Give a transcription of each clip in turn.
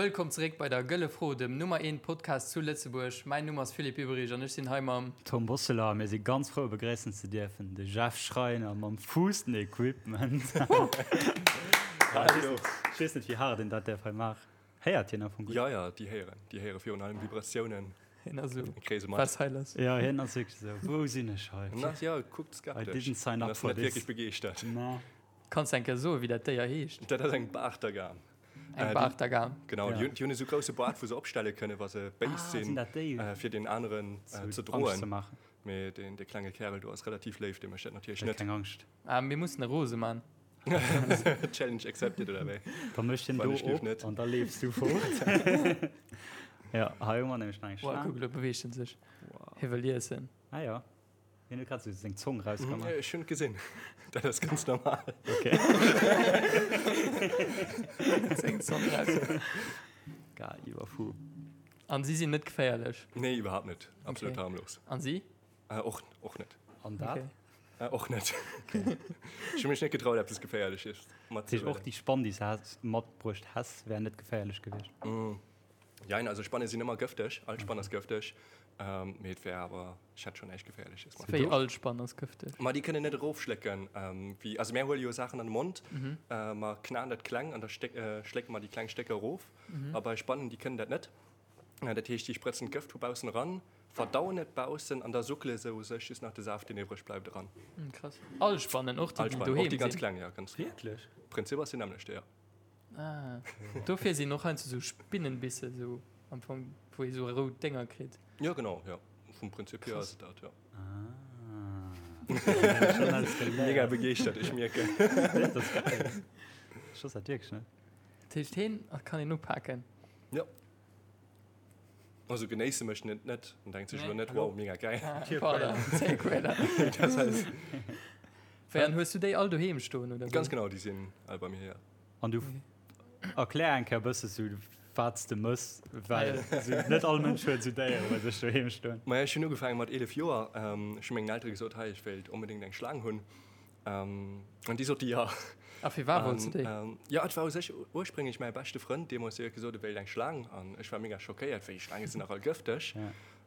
Wëllkomm zeréck bei der Gëlle Fro, dem Nummer eent Podcast zu Lëtzebuerg. Mäin Numm ass Philippe Ueberich an ech sinn hei mam. Tom Bosseler a mir si ganz frou begréissen ze dierfen de Jeff Schreiner mam Fuussen-Equipment. Hallo. Ech weess net wéi haart een dat däerf hei maachen. Héiert hien am Fong gutt? Ja, ja, déi héieren. Déi héiere virun allem Vibratiounen. Hien ass esou, Kréie se mat. was hei lass? Ja, hien ass wierklech esou, wou sinn ech hei? En ass, ja, kuckt I skeptesch. didn't sign En up ass for net this. wierklech begeeschtert. Nee. Kanns de eng Kéier soen, wéi dat Déier heescht? Dat ass eng Baartagam. Eng Äh, Baartagam. Genau, Ja. déi hunn, déi hunn esou grousse Baart, wou se opstelle kënnen, wa se béis Ah, sinn sinn, dat déi? äh, fir deen aneren äh, Zu ze Angscht ze droen. maachen. Mee deen, dee klenge Kärel do ass relativ léif, dee mécht dat natierlech Huet net. keng Angscht. Ah, mir mussen e rose man. Challenge accepted, oder wéi? Da mécht hien Wann do ech lief op net. an da leefs du fort. Ja, hei hu mer nämlech nach eng Wow, Schlaang. kuck, elo beweegt en sech. Hie wëll iessen. Ah ja. Hien huet grad sou seng Zong rausgemaach. Ech hunn et gesinn. Dat ass ganz normal. Okay. Seng Zong raus. Geil, iwwerfu. An si sinn net geféierlech? Nee, iwwerhaapt net. Absolut Okay. harmlos. An si? Äh, och, och net. An dat? Okay. Äh, och net. Ech hu mech net getraut, eppes Geféierleches Dat heescht, och matzehuelen. déi Spann, déi s de matbruecht häss, wär net geféierlech gewiescht? Jein, also Spanne sinn ëmmer gëfteg. All Spann ass gëfteg. Mee et wär awer, ech hätt schonn näischt Geféierleches mat. Wéi all Spann ass gëfteg? Ma déi kënnen net erofschlécken. Wéi, also mär huele jo Saachen an de Mond, mer knaen dat kleng an da schlécke mer déi kleng Stécker erof. A bei Spannen, déi kënnen dat net. Dat heescht, déi sprëtzen d'Gëft vu baussen eran, verdauen et baussen an da suckele se u sech just nach de Saaft, deen iwwreg bleift, eran. Krass. All Spannen, och déi, All déi Spannen, och doheem déi ganz sinn? kleng, jo, ganz. Wierklech? Prinzip ass deen nämmlechte, jo. Ah, dofir sinn och heiansdo sou Spinnenbisse sou am Fong, wou ee sou rout Dénger kritt. Jo, genau, jo. Vum Prinzip hier ass et dat, jo. Ah. Schon alles geléiert. Mega begeeschtert, ech mierken. Dat ass geil. Ech wosst dat wierklech net. Dat heescht, heen kann een upaken? Jo. Also genéisse mécht en et net. En denkt sech elo net, Hallo? wow, mega geil. Ah, pardon, Zéiquäler. Dat ass. Wéi, an hues du déi all doheem stoen, oder wéi? Ganz genau, déi sinn all bei mir, jo. An du erklär eng Kéier e bësse sou, wat s de mëss, well sou net all Mënsch huet sou Déiere bei sech doheem stoen. Maja, ech hunn ugefaange mat 11 Joer. Ech hu mengen Eltere gesot, hei, ech wéilt onbedéngt eng Schlaang hunn. An déi sote jo. A firwat wollts de déi? Jo, et war u sech ursprénglech mäi beschte Frënd deemools, dee huet gesot, e wéilt eng Schlaang. An ech war mega schockéiert, wéi, Schlaange sinn dach all gëfteg.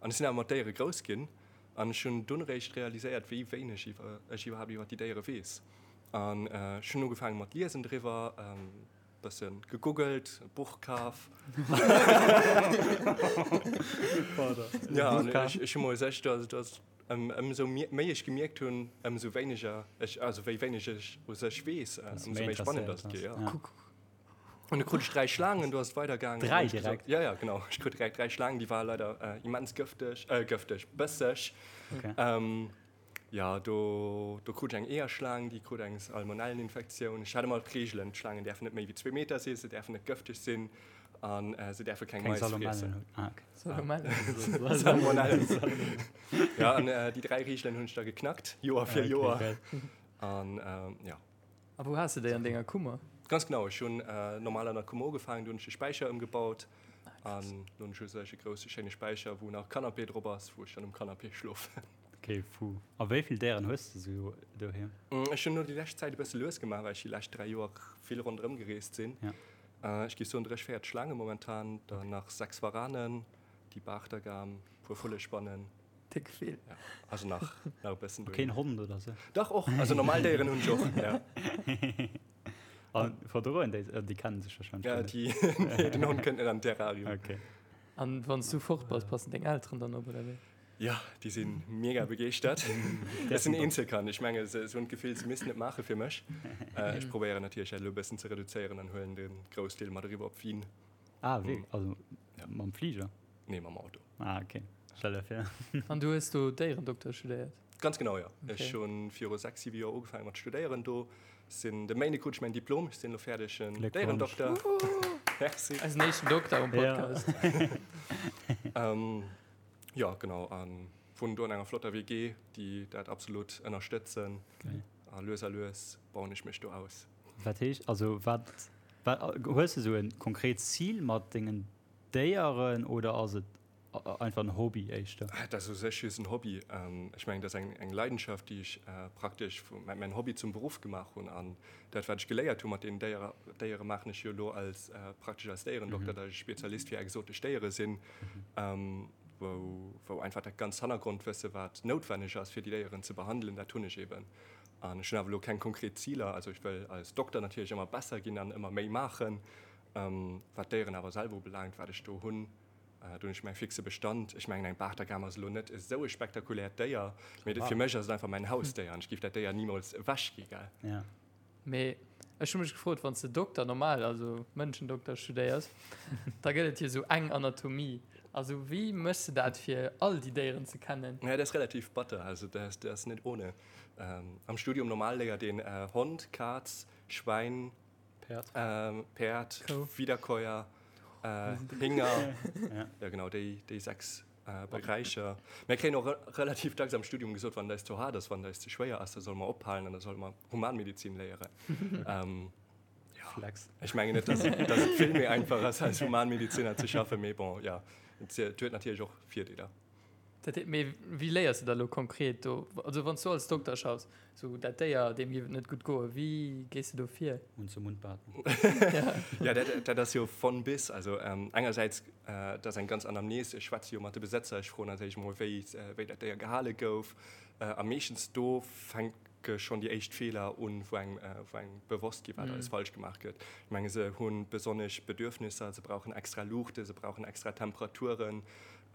An ech sinn awer mat Déiere grouss ginn. An ech hunn dunn eréischt realiséiert, wéi wéineg ech iwwerhaapt iwwer déi Déiere weess. An ech hunn ugefaange mat liesen driwwer, bësse gegoogelt, e Buch kaf. Jo, an ech hu mol sech, dass, dass ëmsou méi ech gemierkt hunn, ëmsou wéineger ech, also wéi wéineg ech u sech weess, ëmsou méi spannend ass et gi, jo. An du krut ech 3 Schlaangen, du ass et weidergaangen. 3 direkt? Ja, ja, genau. Ech krut direkt 3 Schlaangen, déi ware leider immens gëfteg, gëfteg, bësseg. Okay. Ja, do, do krut ech eng Eeërschlaang, déi krut eng Salmonelleninfektioun. Ech hat ëmmer d'Reegelen, d'Schlaangen däerfen net méi wéi zwee Meter sinn, se däerfen net gëfteg sinn an se däerfe keng Keng Mais Salmonellen friessen. hunn. Ah, okay. Salmonellen. Salmonellen. Ja, an déi 3 Reegelen hunn ech da geknackt, Joer fir Okay, Joer. geil. An ja. A wou has de déi? An denger Kummer? Ganz genau, ech hunn normal an der Kummer ugefaangen, du hunn ech de Späicher ëmgebaut an lo hunn ech u sech e grousse schéine Späicher, wou nach Canapé drop ass, wou ech dann um Canapé schlofen. Ok, fou. A wéi vill Déieren hues de sou doheem? Ech hunn elo déi lescht Zäit e bësse lues gemaach, well ech déi lescht 3 Joer vill ronderëm gereest sinn. Ech géif soen 30, 40 Schlaange momentan, dann nach 6 Waranen, déi Baachtergam, puer Vullespannen. Déck vill. Ja, also nach, nach e bëssen A keen doheem. Hond oder sou? Dach och, also normal Déieren hunn ech och, ja. A verdroen déi, déi kennen sech wahrscheinlech Ja, guer net. déi, nee, den Hond kënnt net an den Terrarium. Ok. An wann s du fort bass, passen deng Elteren dann op, oder wéi? Jo, déi si mega begeeschtert. Ech sinn Eenzelkand, ech menge se hunn d'Gefill, se missten et maache fir mech. Ech probéieren natierlech dat elo e bëssen ze reduzéieren an huelen de Groussdeel mat eriwwer op Wien. Ah wierklech? Also mam Fliger? Nee, mam Auto. Ah ok, stell der vir. An du hues do Déierendokter studéiert? Ganz genau, jo. Ech hu viru 6, 7 Joer ugefaange mat studéieren do. Sinn de Méinde krut ech mäin Diplom, ech sinn elo fäerdegen Déierendokter. Merci. Eisen éischten Dokter um Podcast. Jo, genau, a wunnen do an enger flotter WG, déi dat absolut ënnerstëtzen. A lues a lues bauen ech mech do aus. Wat heescht, also wat, wat, hues de sou e konkret Zil mat dengen Déieren oder ass et. einfach en Hobby éischter? Dat ass u sech just en Hobby. Ech mengen, dat ass eng Leidenschaft, déi ech praktesch vu mäin Hobby zum Beruff gemaach hunn. An dat, wat ech geléiert hu mat deenen Déiere, maachen ech jo elo als praktesch als Déierendokter, datt ech Spezialist fir exotesch Déiere sinn, wou einfach dat ganz Hannergrondwësse, wat noutwenneg ass, fir déi Déieren ze behandelen, dat hunn ech eeben. An ech hunn awer elo keng konkret Ziler. Also ech wëll als Dokter natierlech ëmmer besser ginn an ëmmer méi maachen. Wat d'Déieren awer selwer ubelaangt, wat ech do hunn, do hunn ech mäi fixe Bestand. Ech mengen, eng Bartagam ass elo net esou e spektakuläert Déier, mee fir mech ass et einfach mäin Hausdéier an ech géif dat Déier nimools ewechgi, gell? Ja. Mee ech hu mech gefrot, wann s de Dokter normal, also Mënschendokter studéiers, da gëtt et jo esou eng Anatomie. Also wéi méchs de dat, fir all déi Déieren ze kennen? Ja, dat ass relativ batter, also dat ass net ohne. Am Studium normal léiert een Hond, Kaz, Schwäin, Päerd, Päerd, Wiederkäuer, Hénger, ja genau déi déi 6 Beräicher. Mir kréien och relativ dacks am Studium gesot, wann et eis ze haart ass, wann et eis ze schwéier ass, da solle mer ophalen an da solle mer Humanmedizin léieren. Ja, Flex. Ech mengen net, dass dass et vill méi einfach ass als Humanmediziner ze schaffen, mee bon, ja, et huet natierlech och Virdeeler. Dat heet, mee wéi léiers de da lo konkret do, also wann s du als Dokter schaffs, sou dat Déier, deem géif et net gutt goen, wéi gees de do vir? Mund zu Mund Beatmung. Ja, dat, dat ass jo von bis. Also engersäits, dat ass eng ganz Anamnese, ech schwätze jo mat de Besëtzer, ech froen als éischt emol, wéi, wéi dat Déier gehale gouf. A meeschtens do fänke schonn déi éischt Feeler un, wou engem, wou engem bewosst gi wat alles falsch gemaach gëtt. Ech menge se hu besonnesch Bedürfnisser, se brauchen extra Luuchte, se brauchen extra Temperaturen.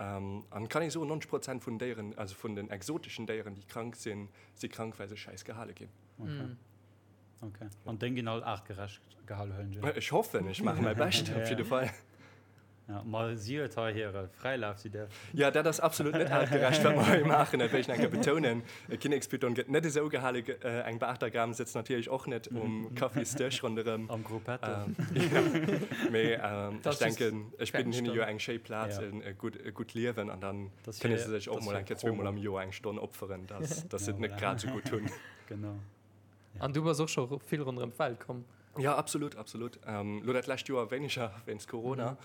An kann ee soen, 90 Prozent vun Déieren, also vun den exoteschen Déieren, déi krank sinn, si krank, well se schäiss gehale ginn. Okay. Okay. An deng ginn all aartgerecht gehale, huelen ech un? Ech hoffen, ech maache mäi Bescht op jidde Fall. Ja, ma si huet hei hire Fräilaf, si däerf. Ja, dat ass absolut net aartgerecht, wat mer hei maachen, dat wéll ech nach eng Kéier betounen. E Kinnekspython gëtt net esou gehale, eng Bartagam sëtzt natierlech och net um Kaffisdësch ronderëm. Am Gruppetto. Mee ech denken, ech bidden hinne jo eng schéi Plaz, e gutt Liewen an dann kënne se sech och mol eng Kéier zweemol am Joer eng Stonn opferen, dass se et net grad esou gutt hunn. Genau. An du bass och scho vill ronderëm d'Welt komm? Jo, absolut, absolut. Lo dat lescht Joer wéineger wéinst Corona.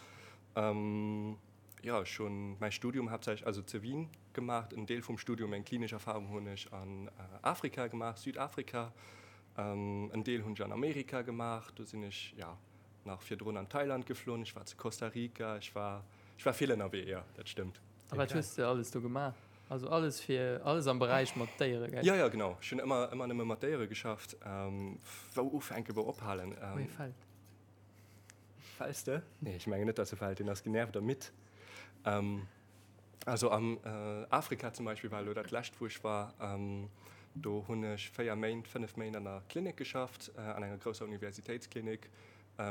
Jo, ech hunn mäi Studium haaptsächlech, also zu Wien gemaach. En Deel vum Studium, meng klinesch Erfahrung hunn ech an Afrika gemaach, Südafrika. En Deel hunn ech an Amerika gemaach. Do sinn ech, jo, nach virdrun an Thailand geflunn. Ech war zu Costa Rica. Ech war, ech war vill ënnerwee, jo, dat stëmmt. A wat hues de alles do gemaach? Also alles fir, alles am Beräich mat Déiere, gell? Jo, jo, genau. Ech hunn ëmmer, ëmmer nëmme mat Déiere geschafft. Wou ufänken, wou ophalen? Wou ee fält. Fäls de? Nee, ech mengen net, dass e fält. Deen ass genervt a midd. Also am Afrika zum Beispill war elo dat lescht, wou ech war. Do hunn ech 4 Méint, 5 Méint an der Klinik geschafft, an enger grousser Universitéitsklinik,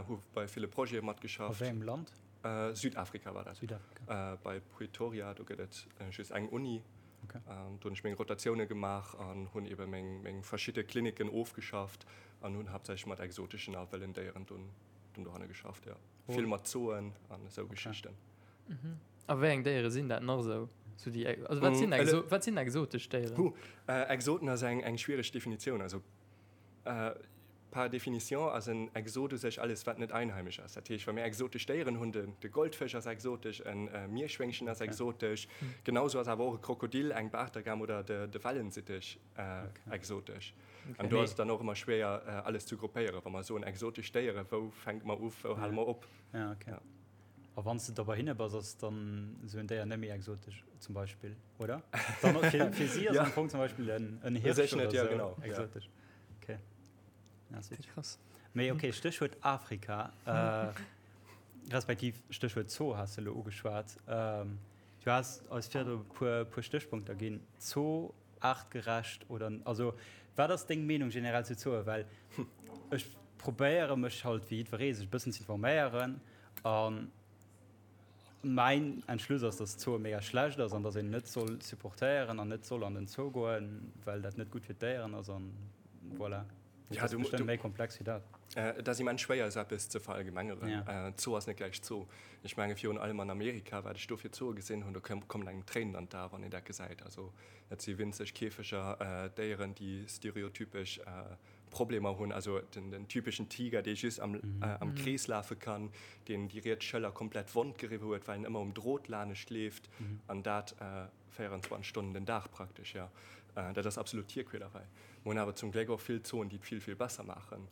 hu bei ville Projete matgeschafft. A wéi engem Land? Südafrika war dat. Südafrika. Bei Pretoria, do gëtt et just eng Uni. Okay. Do hunn ech meng Rotatioune gemaach an hunn ebe meng, meng verschidde Kliniken ofgeschafft an hunn haaptsächlech mat exoteschen a wëllen Déieren dunn, dunn dohanne geschafft, jo. Oh. Vill mat Zooen an esou okay. Geschichten. Mhm. A wéi eng Déiere sinn dat nach esou? So déi, also wat sinn, mm, wat sinn exotesch Déieren? Huh, äh, Exoten ass eng, eng schwiereg Definitioun. Also Par définition ass en Exot u sech alles, wat net einheimesch ass. Dat heescht, wa mir exotesch Déieren hunn, de Goldfësch ass exotesch, e Mierschwéngchen ass exotesch, genau sou ass awer och e Krokodil, eng Bartagam oder de Wellensittich exotesch. An do ass et dann och ëmmer schwéier, alles ze gruppéieren. Wa mer soen exotesch Déieren, wou fänke mer u, wou hale mer op? A wann s de da bei hinne bass, ass dann esou en Déier net méi exotesch zum Beispill, oder? Dann fir, fir si ass ja. am Fong zum Beispill en, en Hirsch oder net, ja, genau. exotesch. Ja. Okay. Ja, krass. Mee okay, Stéchwuert Afrika, äh, respektiv Stéchwuert Zoo has de lo ugeschwat. Ähm, du has eis virdru e puer, puer Stéchpunkter ginn. Zoo, aartgerecht oder, also wat ass deng Meenung generell zu Zooe? Well ech probéiere mech halt wéi jiddweree sech e bëssen ze informéieren a mäin Entschluss ass, dass Zooe mega schlecht ass an dass een net soll supportéieren an net soll an den Zoo goen, well dat net gutt fir d'Déieren ass an voilà. Ja, dat ass bestëmmt méi komplex wéi dat. Et ass immens schwéier esou eppes ze verallgemengeren. Ja. Zoo ass net gläich Zoo. Ech menge virun allem an Amerika, wat ech do fir Zooe gesinn hunn, do kommen engem d'Tréinen an d'Ae wann een dat gesäit. Also dat si winzeg Käfeger, Déieren, déi stereotypesch. Problemer hunn, also den, den typeschen Tiger, dee just am, äh, am Krees lafe kann, deen déi riets Schëller komplett wond geriwwe huet, well en ëmmer um Drot lanescht leeft an dat äh, 24 Stonnen den Dag praktesch, jo. Äh, dat ass absolut Tierquälerei. Mer hunn awer zum Gléck och vill Zooen, déi et vill, vill besser maachen.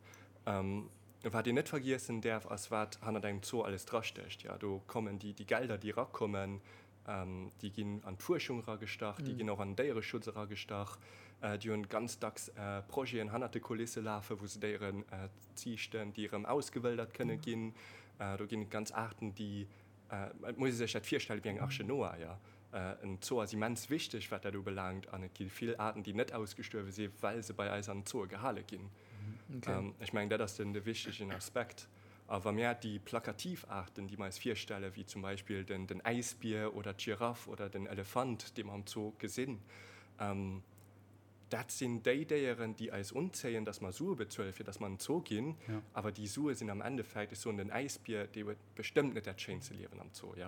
Ähm, wat een net vergiessen däerf, ass wat hannert engem Zoo alles drastécht, jo. Do kommen déi, déi Gelder, déi erakommen, Déi ginn an d'Fuerschung eragestach, déi ginn och an den Déiereschutz eragestach. Déi hunn ganz dacks Projeten hannert de Kulisse lafen, wou se Déieren ziichten, déi erëm ausgewëldert kënne ginn. Do ginn et ganz Aarten, déi, et muss ee sech dat virstelle wéi eng Arche Noah, jo. En Zoo ass immens wichteg, wat dat ubelaangt, an et gi vill Aarten, déi net ausgestuerwe si well se bei eis an den Zooe gehale ginn. Ech mengen, dat ass den de wichtegen Aspekt. A wa mir déi plakativ Aarten, déi mer eis virstellen, wéi zum Beispill den den Äisbier oder d'Giraff oder den Elefant, dee mer am Zoo gesinn, dat sinn déi Déieren, déi eis unzéien, dass mer Sue bezuelen, fir dass mer an den Zoo ginn. Awer déi Sue sinn am Endeffekt, ech soen, den Äisbier, dee huet bestëmmt net dat schéinste Liewen am Zoo, jo,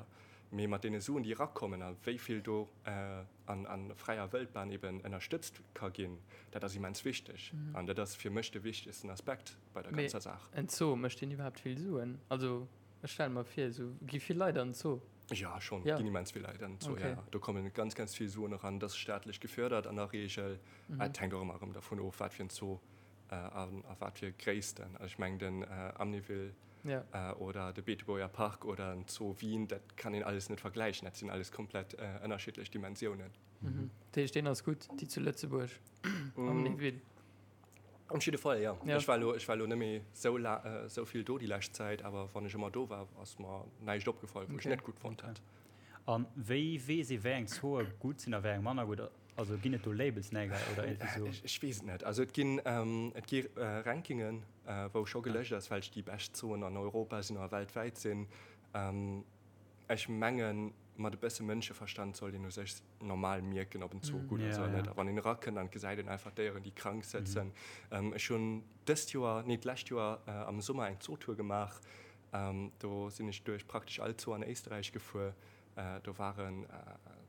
mee mat deene Suen, déi erakommen a wéi vill do an a fräier Wëldbahn eben ënnerstëtzt ka ginn, dat ass immens wichteg. An dat ass fir mech de wichtegsten Aspekt bei der ganzer Saach. Mee en Zoo, mécht deen iwwerhaapt vill Suen? Also ech stelle mer vir, esou gi vill Leit an den Zoo. Jo, schonn, ginn immens vill Leit an den Zoo, jo. Do komme ganz, ganz vill Suen eran. Dat ass staatlech gefördert an der Reegel. Et hänkt och ëmmer erëm dervun of, wat fir en Zoo a wat fir Gréissten. Also ech mengen den Amnéville oder de Beetebuerger Park oder den Zoo Wien, dat kann een alles net vergläichen. Dat sinn alles komplett ënnerschiddlech Dimensiounen. Dat heescht, deen ass gutt, déi zu Lëtzebuerg, Amnéville? Op jidde Fall, jo. Ech war elo, ech war elo net méi sou la, sou vill do déi lescht Zäit, awer wann ech ëmmer do war, ass mer näischt opgefall, wou ech net gutt fonnt hätt. A wéi weess ee, wéi eng Zooe gutt sinn a wéi eng manner gutt? Also ginn et do Labels, nee gell, oder iergendwéi sou? Ech weess et net. Also et ginn, et gi Rankingen, wou scho gelëscht ass, welch déi bescht Zooen an Europa sinn oder weltwäit sinn. Ech mengen, mat e bësse Mënscheverstand sollt een u sech normal mierken, ob en Zoo gutt ass oder net. A wann een erakënnt an et gesäit een einfach Déieren, déi krank sëtzen. Ech hunn dëst Joer, nee d'lescht Joer am Summer eng Zootour gemaach. Do sinn ech duerch praktesch all Zoo an Éisträich gefuer. Do waren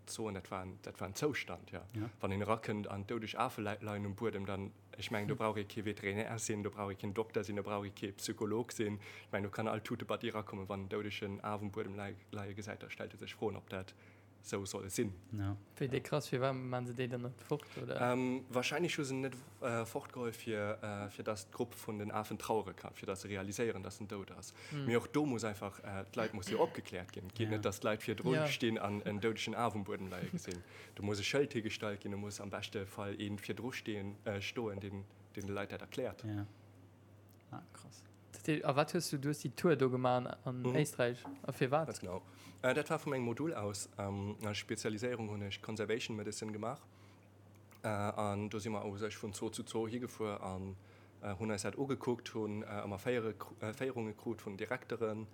Zooen, dat war dat war en Zoustand, jo. Wann een erakënnt an doudeg Afe leien um Buedem, dann, ech mengen, do brauch ee kee Veterinär sinn, do brauch ee keen Dokter sinn, do brauch ee kee Psycholog sinn. Ech mengen, do kann all Tutebatti erakommen, wann en doudegen Af um Buedem leie gesäit, da stellt e sech Froen, ob dat sou soll sinn. Wéi déi krass, firwat maan se déi dann net fort, oder? Wahrscheinlech hu se en net fortgeholl, fir fir dass d'Grupp vun den Afen trauere kann, fir dass se realiséieren, dass en dout ass. Mee och do muss einfach, d'Leit musse jo opgekläert ginn. Et geet net, dass d'Leit virdru stinn an en doudegen Af um Buedem leie gesinn. Do muss e Schëld higestallt ginn, do muss am beschte Fall ee virdru stehen, stoen, deen deen de Leit dat erkläert. Ah, krass. Dat heescht, a wat hues du, du hues déi Tour do gemaach an Éisträich, a firwat? Ganz genau. Dat war vu mengem Modul aus. Als Spezialiséierung hunn ech Conservation Medicine gemaach. An do si mer u sech vun Zoo zu Zoo higefuer an hunn eis dat ugekuckt, hunn ëmmer Féierunge krut vun Direkteren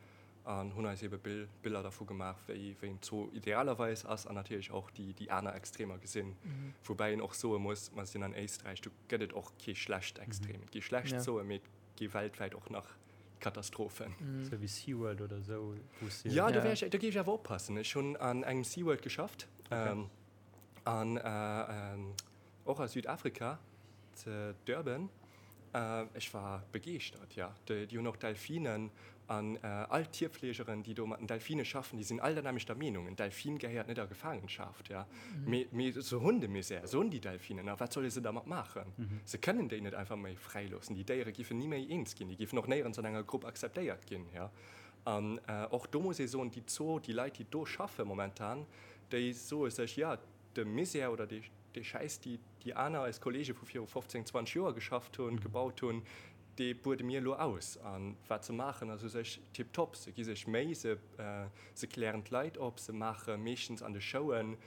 an hunn eis ebe Biller dervu gemaach, wéi en Zoo idealerweis ass an natierlech och déi aner Extremer gesinn. Woubäi een och soe muss, mer sinn an Éisträich, do gëtt et och kee schlecht Extrem. Et gi schlecht Zooe, mee et gi weltwäit och nach Katastrophen. Sou wéi SeaWorld oder esou, wou s de. Jo, do wär ech, do géif ech awer oppassen. Ech hunn an engem SeaWorld geschafft an och a Südafrika, ze Durban. Ech war begeeschtert, jo. Déi hunn och Delfinen an all d'Tierfleegeren, déi do mat den Delfine schaffen, déi sinn all der nämmlechter Meenung, En Delfin gehéiert net a Gefaangenschaft, jo. Mee, mee se hunn de Misär, se hunn déi Delfinen, a wat solle se dermat maachen? Se kënnen déi net einfach méi fräiloossen. Déi Déiere giffen ni méi eens ginn, déi giffen och néierens an enger Grupp akzeptéiert ginn, jo. An och do muss ee soen, déi Zoo, déi Leit, déi do schaffe momentan, déi soe sech, jo, de Misär oder dee Schäiss, déi déi aner, eis Kollege vu viru 15, 20 Joer geschafft hunn, gebaut hunn, dee buede mir elo aus. A wat se maachen, ass u sech tiptop. Se gi sech Méi, se se klären d'Leit op, se maache meeschtens an de Showen,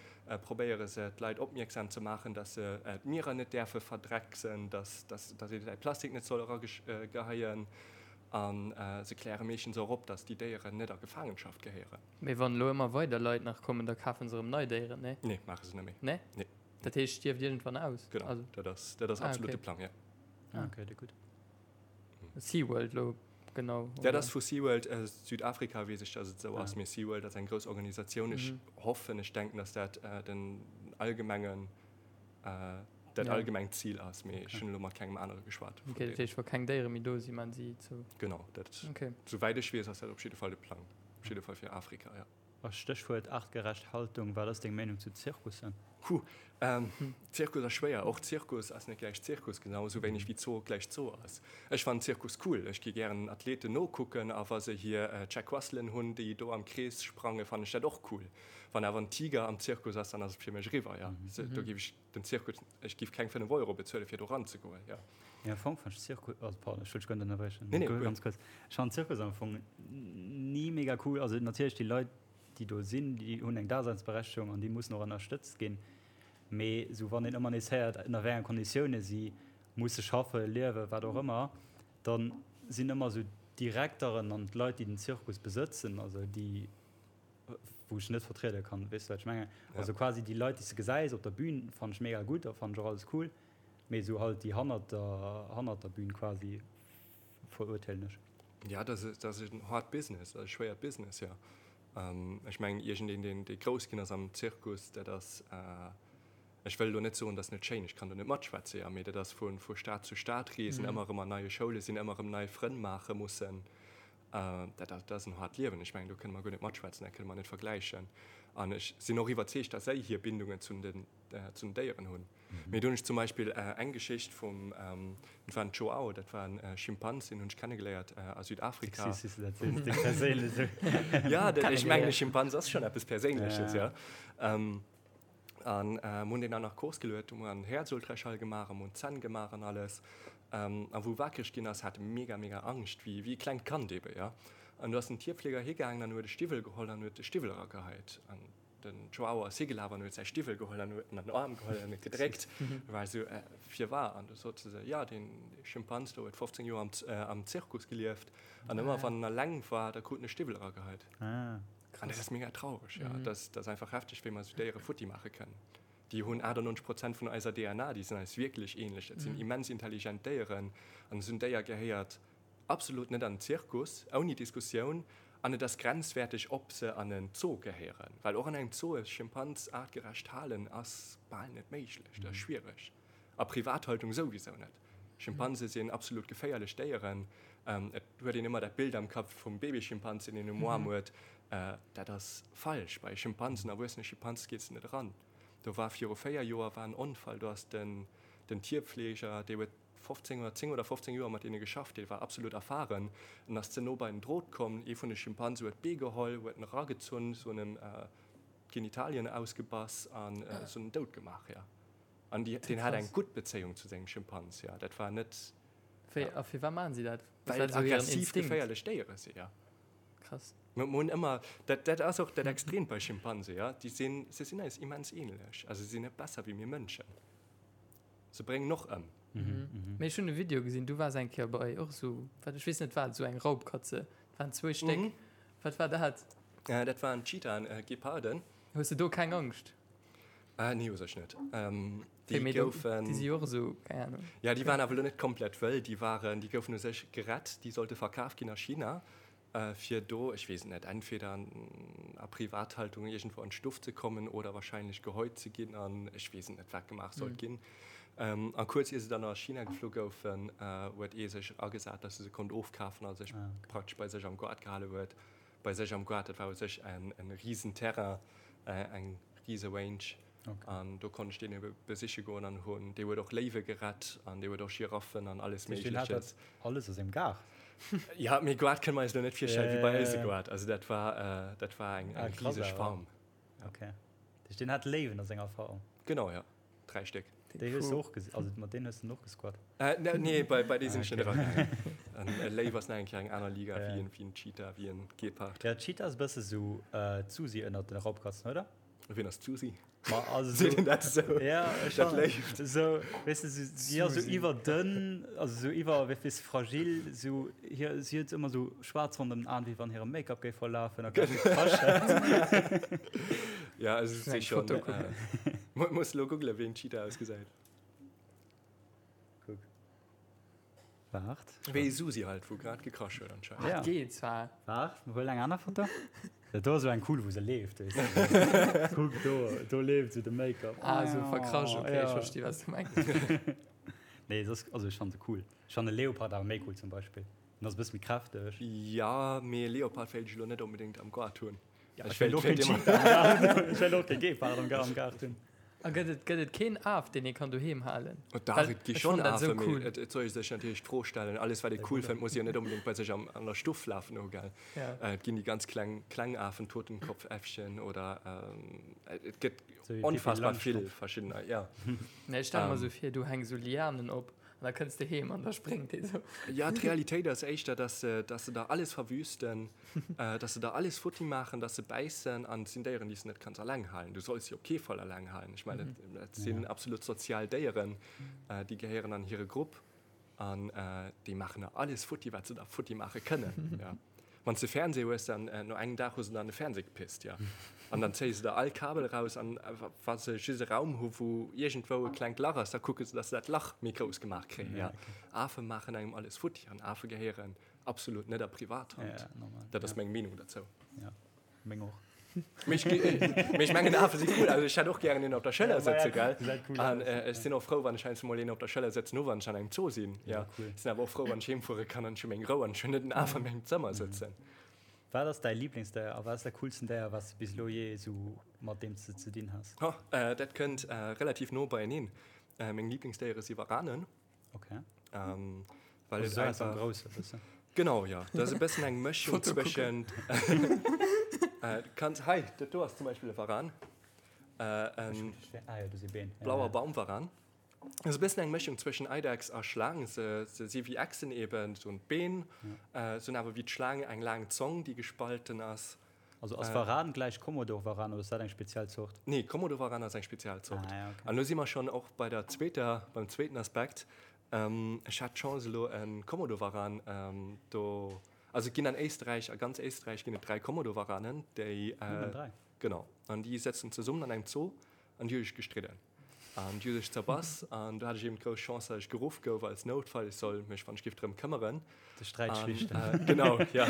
probéiere se d'Leit opmierksam ze maachen, datt se d'Mierer net däerfe verdrecksen, datt datt ee säi Plastik net soll erageheien. A se kläre meeschtens och op, datt déi Déieren net a Gefaangenschaft gehéieren. Mee wann elo ëmmer weider Leit nach kommen, da kafen se erëm nei Déieren, nee? Nee, maache se net méi. Nee? Nee. Dat heescht, stierft iergendwann aus? Genau, also, dat ass, dat ass ah, absolut okay. de Plang, ja. Ah, okay, dat gutt. SeaWorld lo, genau. Dat ass vu SeaWorld äh, Südafrika, weess ech, dass et esou ah. ass. Mee SeaWorld ass eng grouss Organisatioun. Ech mhm. hoffen, ech denken, dass dat äh, den allgemengen äh, dat allgemengt Zil ass, mee ech hunn elo mat kengem anere geschwat. Okay, dat heescht, wa keng Déiere méi do sinn, maan si zou? Genau, dat, souwäit ech weess, ass dat op jidde Fall de Plang, op jidde Fall fir Afrika, jo. A Stéchwuert artgerecht Haltung, wat ass deng Meenung zu Zirkussen? Huh, Zirkus ass schwéier. Och Zirkus ass net gläich Zirkus, genau esou wéineg wéi Zoo gläich Zoo ass. Ech fannen Zirkus cool, ech gi gären Athleten nokucken a wa se hir Checkwusselen hunn, déi do am Krees sprangen, fannen ech dat och cool. Wann awer en Tiger am Zirkus ass, dann ass et fir mech eriwwer, jo. Do géif ech den Zirkus, ech géif keng 5 Euro bezuelen, fir do ranzegoen, jo. Mee am Fong fannt ech Zirkus, also pardon, ech wëll dech guer net ënnerbriechen, Nee, nee, guer. ganz kuerz. Ech fannen Zirkus am Fong ni mega cool. Also natierlech déi Leit, déi do sinn, déi hunn eng Daseinsberechtegung an déi mussen och ënnerstëtzt ginn. Mee esou wann een ëmmer nees héiert, ënner wéi enge Konditioune si musse schaffen, liewen, wat och ëmmer, da sinn ëmmer esou d'Direkteren an d'Leit, déi den Zirkus besëtzen, also déi, wou ech net vertriede kann, weess de wat ech mengen? Also quasi déi Leit, déi s de gesäis op der Bühn, fannen ech mega gutt a fannen ech och alles cool, mee esou halt déi hannert der, hannert der Bühn quasi verurteelen ech. Ja, dat ass, dat ass en hard business, dat ass e schwéiert Business, jo. Ech mengen, iergendeen, deen, dee grouss ginn ass am Zirkus, dat ass, ech wëll elo net soen, dat ass net schéin, ech kann do net matschwätze, jo, mee dat ass vu, vu Stad zu Stad reesen, ëmmer erëm an neie Schoule sinn, ëmmer erëm nei Frënn maache mussen. Dat ass en haart Liewen. Ech mengen, do kënne mer guer net matschwätzen, dat kënne mer net vergläichen. An ech sinn och iwwerzeegt, datt si hir Bindungen zu den, zu den Déieren hunn. Mee do hunn ech zum Beispill eng Geschicht vum, dat war en Joao, dat war en Schimpans, deen hunn ech kennegeléiert a Südafrika. Süß, wéi s du dat sees, déi perséinlech. Ja, ech mengen, e Schimpans ass schonn eppes Perséinleches, jo. An mir hunn deen an Narkos geluet, hu mer en Häerzultraschall gemaach a mir hunn d'Zänn gemaach an alles. A wou e wakereg ginn ass, hat e mega, mega Angscht, wéi wéi e klengt Kand ebe, jo. An do ass den Tierfleger higaangen an huet e Stiwwel geholl an huet de Stiwwel erageheit. An den Joao ass higelaf an huet säi Stiwwel geholl an huet en an den Aarm geholl an huet gedréckt. E war esou, Firwar? An du sot se, Jo, deen Schimpans do huet 15 Joer am am Zirkus gelieft an ëmmer wann en alleng war, da krut en e Stiwwel erageheit. An dat ass mega traureg, jo. Dat ass, dat ass einfach hefteg, wéi mer esou Déiere futti maache kënnen. Déi hunn 98 Prozent vun eiser DNA, déi sinn eis wierklech ähnlech. Dat sinn immens intelligent Déieren. An esou en Déier gehéiert absolut net an den Zirkus, ouni Diskussioun. An et ass grenzwäerteg, ob se an en Zoo gehéieren. Well och an engem Zoo e Schimpans aartgerecht halen ass bal net méiglech, dat ass schwiereg. A Privathaltung souwisou net. Schimpanse sinn absolut geféierlech Déieren. Et huet een ëmmer dat Bild am Kapp vum Babyschimpanz, deen een um Aarm huet. Dat ass falsch. Bei Schimpansen, erwuessene Schimpanse gees de net eran. Do war viru 4 Joer war en Onfall, do ass den den Tierpfleger, dee huet 15 oder 10 oder 15 Joer mat deene geschafft, dee war absolut erfahren, en ass ze no bei den Drot komm, ee vun de Schimpanse huet d'Bee geholl, huet en eragezunn, se hunn em d'Genitalien ausgebass an se hunn en dout gemaach, jo. An déi, deen hat eng gutt Bezéiung zu sengem Schimpans, jo. Dat war net. Wéi, a firwat maachen si dat? Well et aggressiv, geféierlech Déiere sinn, jo. Krass. Mir hunn ëmmer, dat, dat ass och dat Extreemt bei Schimpanse, jo. Déi sinn, se sinn eis immens ähnlech. Also se sinn net besser wéi mir Mënschen. Se bréngen och ëm. Mee ech hunn e Video gesinn, du waars eng Kéier bei och esou, wat, ech weess net wat, esou eng Raubkatze. Dat waren zwou Stéck. Wat war dat? Dat waren Cheetahen, Geparden. Hues de do keng Angscht? Ah, nee, u sech net. Ähm, déi okay, goufen. Déi si och esou, keng Ahnung. Ja, déi waren awer elo net komplett wëll. Déi waren, déi goufen u sech gerett. Déi sollte verkaf ginn a China, äh, fir do, ech weess et net, entweder an, a Privathaltung iergendwou an d'Stuff ze kommen oder wahrscheinlech gehäut ze ginn an ech weess et net, wat gemaach sollt ginn. Ähm, a kuerz ier se dann a China geflu goufen, äh, huet ee sech agesat, dass e se konnt ofkafen a sech ah, okay. praktesch bei sech am Goart gehale huet. Bei sech am Goart, dat war u sech en, en riesen Terrain, äh, eng riese Range. Okay. An do konnt ech deen ebe besiche goen an hunn, dee huet och Léiwe gerett an dee huet och Giraffen an alles Méigleches. Alles a sengem Gaart? Ja, mee Goart kënne mer eis elo net virstellen wéi bei eis e Goart. Also dat war, äh, dat war eng, eng riseg Farm. Okay. Dat heescht, deen hat Léiwen a senger Farm? Genau, ja. 3 Stéck. Déi hues du och gesinn, also mat deenen hues du och gesquat? Äh, ne, nee, bei, bei deene sinn ech net eragaangen. En e Léiw ass nach eng Kéier eng aner Liga wéi en, wéi en Cheetah, wéi en Gepard. Ja, Cheetah ass e bësse sou d'Susi ënnert den Raubkatzen, oder? Wien ass d'Susi? Ma also sou. Seet een dat esou? Ja, ech Dat Léift? Sou, weess de, sou, si ass sou iwwerdënn, also sou iwwer, wéi weess, fragil, sou hir, si huet ëmmer sou schwaarz ronderëm den Aen, wéi wann hire Make-up géif verlafen a grad gekrasch hätt. Ja, also si schon. Äh, muss lo googlen, wéi en Cheetah ausgesäit. Kuck. Waart. Wéi Susi halt, wou grad gekrasch huet anscheinend. Ja. Geet zwar. Waart, huel eng aner Foto. Dat do ass esou eng cool, wou se leeft, weess de. Kuck do, do leeft esou de Make-up. Ah, esou verkrasch, okay, ech versti wat s du mengs. Nee, et ass, also ech fannen se cool. Ech fannen e Leopard awer méi cool zum Beispill. En ass e bësse méi kräfteg. Ja, mee e Leopard wéilt ech elo net onbedéngt am Gaart hunn. Ja, ech wéilt och keen Cheetah am Gaart hunn. Ech wéilt och kee Gepard am Gaart hunn. A gëtt et, gëtt et keen Af, deen ee kann doheem halen? Oh dach, et gi schonn Afen, mee et, et soll ee sech natierlech d'Fro stellen, alles wat ee cool fënnt, muss ee jo net onbedéngt bei sech am, an der Stuff lafen hu, gell? Et ginn déi ganz kleng, kleng Afen, Totenkopfäffchen oder et gëtt onfassbar vill verschiddener, jo. Nee, ech stelle mer esou vir, du hänks esou Lianen op an da kënns de heem an da spréngt dee sou. Jo, d'Realitéit ass éischter, dass se, dass se der alles verwüsten. Dass se der alles futti maachen, dass se bäissen an et sinn Déieren, déi s de net kanns alleng halen. Du solls si op kee Fall alleng halen. Ech mengen, dat sinn absolut sozial Déieren, déi gehéieren an hire Grupp an déi maachen der alles futti, wat se der futti maache kënnen. Ja. Wann s de Fernseh hues, dann no engem Dag hu se der an de Fernseh gepisst, ja. An dann zéie se der all Kabel eraus an wa se just e Raum hu wou iergendwou e klengt Lach ass, da kucke se, dass se dat Lach méi grouss gemaach kréien, ja. Afe maachen engem alles futti an Afe gehéieren Absolut net a Privathand. Ja, normal. Dat ass ja. meng Meenung dozou. Ja, meng och. Mee ech mengen Afe si cool. Also ech hätt och gären een op der Schëller sëtze, gell? Cool an äh, ech sinn och frou, wann ech heiansdo mol een op der Schëller sëtzen hu, wann ech an engem Zoo sinn. Ja, ja cool. Sinn awer och frou, wann ech heemfuere kann an ech hu meng Rou an ech hunn net en Af an mengem Zëmmer mhm. sëtzen. Wat ass däi Lieblingsdéier a wat ass dat coolsten Déier, wat s du bis elo jee esou mat deem s de ze dinn has? Oh, äh, dat kënnt äh, relativ no beieneen. Äh, meng Lieblingsdéiere si Waranen. Okay. Ähm, weil also es einfach groß, e Genau ja das e bëssen eng Mëschung zwëschen äh, kannst hei dat do ass zum Beispiel e Varan äh, en ah, ja, ja, blauer Baumvaran. Ass e bëssen eng Mëschung zwëschen Eidechs a Schlaang. Se, se si wéi Echsen eben, so en Been, ja. äh, se hunn awer wéi d'Schlaang eng laang Zong, déi gespalten ass. Also ass Varan gläich Komodovaran oder ass dat eng speziell Zort? Nee, Komodovaran ass eng speziell Zort. Ah, ja, okay. An lo si mer schonn och bei der zweeter, beim zweeten Aspekt. Ech hat d'Chance elo e Komodovaran do, also et ginn an Éisträich, a ganz Éisträich ginn et 3 Komodovaranen, déi. Nëmmen 3? Genau. An déi sëtzen zesummen an engem Zoo an déi hu sech gestridden. An déi hu sech zerbass an do hat ech eben d'grouss Chance, datt ech geruff gouf als Noutfall, ech soll mech wann ech giff drëm këmmeren. De Sträit schlichten. An, genau, ja.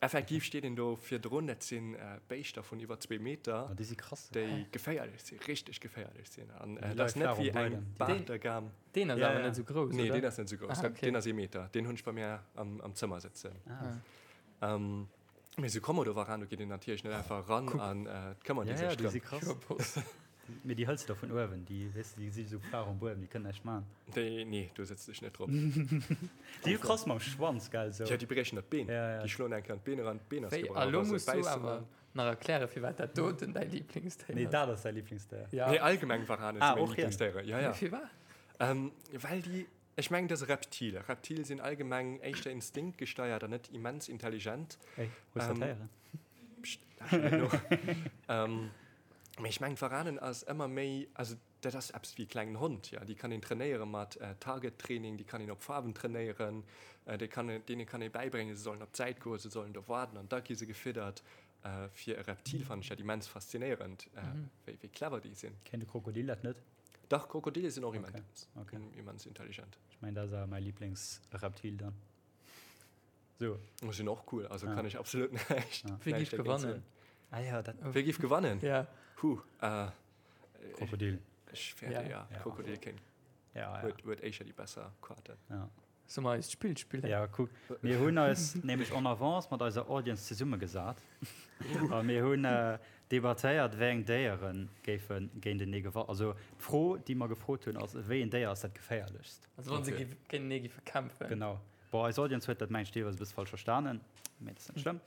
Effektiv steet een do virdrun, dat sinn Béischter vun iwwer zwee Meter, Oh, déi si krass. déi geféierlech sinn, richteg geféierlech sinn. An Déi dat ass leie net flaach um wéi eng Buedem. Baartergam. Deen ass Ja, awer ja. net esou grouss, Nee, oder? deen ass net esou grouss. Ah, okay. Deen ass ee Meter. Deen hunn ech bei mär am, am Zëmmer sëtzen. Ah. Mee esou Komodowaran, do geet een natierlech net einfach eran an et këmmert ee Ja, ja, sech déi drëm. si krass. Mee déi hëls de da vun uewen, déi, weess de, déi si esou flaach um Buedem, déi kënnen näischt maachen. Déi, nee, do sëtz ech net drop. Déi hu krass mam Schwanz, gell, esou. Ja, déi briechen der d'Been. Ja, ja. Déi schloen eng Kéier an d'Been eran, d'Been ass Wéi, gebrach. a lo Wa se muss du bäissen, awer dann. nach erklären, firwat dat doten däi Lieblingsdéier Nee, ass. dat ass däi Lieblingsdéier. Ja. Nee, allgemeng Warane si Ah, meng och hien. Lieblingsdéiere, ja, ja. Mee firwat? Well déi Ech mengen, dat ass e Reptil. Reptile sinn allgemeng éischter instinktgesteiert an net immens intelligent. Ey, hues dat héieren? Pscht, lauschter net no. Mee ech mengen, d'Waranen ass ëmmer méi, also dat ass eppes wéi e klengen Hond, jo. Déi kann een trainéiere mat Target-Training, déi kann een op Faarwen trainéieren, déi kann een, deene kann ee bäibréngen, se sollen op d'Säit goen, se sollen do waarden an da gi se gefiddert. Fir e Reptil fannen ech dat immens faszinéierend, wéi clever déi sinn. Kéint e Krokodil dat net? Dach, Krokodile sinn och immens, okay. immens intelligent. Ech mengen, dat ass awer mäi Lieblingsreptil dann. So. Oh, sinn och cool, also ja. kann ech absolut näischt. Ja. Wie giff gewannen? Ah, ja, dat Wie giff gewannen? Ja. Huh, äh, Krokodil. Ech fäerte, ja. ja. Krokodil kéint. Ja, ja. Huet, huet éischer déi besser Quaten. Ja. Soll mer eist Spill spillen? Ja, kuck, mir hunn eis nämlech en avance mat eiser Audience zesummegesat a mir hunn debattéiert, wéi eng Déiere géife géintenee gewannen. Also d'Fro, déi mer gefrot hunn, ass, Wéi een Déier ass dat geféierlechst? Also wa se géintenee géife kämpfen. Genau. Bon, eis Audience huet dat, mengen ech, deelweis e bësse falsch verstanen, mee dat ass net schlëmm.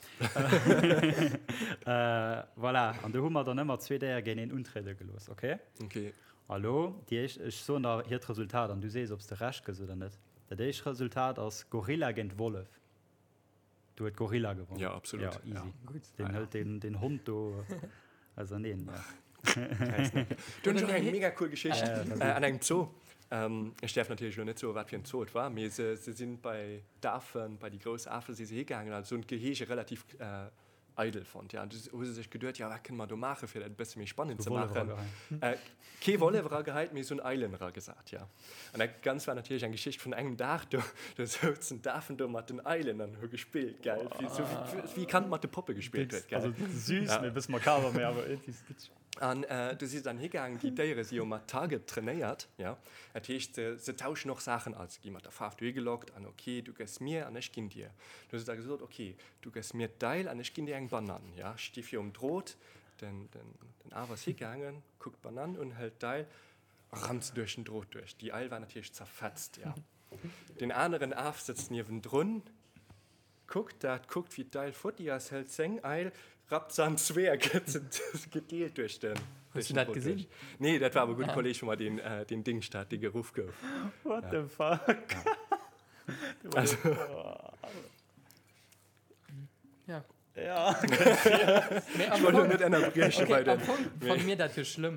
Voilà, an do hu mer dann ëmmer zwee Déier géinteneen untriede gelooss, okay? Okay. A lo déi éischt, ech soen der hiert Resultat an du sees, ob s de Recht gëss oder net. Dat éischt Resultat ass Gorilla géint Wollef. Do huet Gorilla gewonnen. Ja, absolut. Ja, easy. Gutt. Deen hëlt den, den Hond do auserneen. Ja. Do hunn ech och eng mega cool Geschicht Ja, ja, äh, an engem Zoo. Ähm, ech däerf natierlech elo net soen, wat fir en Zoo et war, mee se, se sinn bei d'Afen, bei déi grouss Afe si se higaangen, also hunn d'Gehege relativ äh. Eidel fonnt. Ja, du hu se sech geduet, ja, wat kënne mer do maachen, fir dat e bësse méi spannend ze maachen. Äh, kee Wollef erageheit, mee se hunn Eilen eragesat, ja. An dat Ganzt war natierlech eng Geschicht vun engem Dag. Do, do souzen d'Afen do mat den Eilen an hu gespillt, gell, wéi, sou wéi, wéi e Kand mat de Poppe gespillt huet, gell. Also süß, Ja. mee e bësse makaber, mee awer iergendwéi witzeg. An äh, du si se dann higaangen, déi Déiere si jo mat Target trainéiert, ja. Dat heescht, se, se tauschen och Saachen aus. Se gi mat der Faarf dohi gelockt an ok, du gëss mir an ech ginn dir. Du hu se da gesot, ok, Du gëss mir d'Eil an ech ginn dir eng Banann. Ja, sti virum Drot. Den, den, den Af ass higaangen, kuckt d'Banann un, hëlt d'Eil a rammt se duerch den Drot duerch. Déi Eil war natierlech zerfetzt, ja. Den aneren Af sëtzt niewendrun, kuckt dat, kuckt, wéi d'Eil futti ass, hëlt seng Eil, rappt se an zwee a gëtt se gedeelt duerch den, Hues duerch du den dat Drot gesinn? duerch. Nee, dat war awer e gudde Kolleeg vu mer, deen, deen Dingscht hat, dee geruff gouf. What the fuck? Also. Ja. Ja. Mee am Ech wollt Fong, net ënnerbrieche okay, bei am den. Fong fanne mir dat jo schlëmm.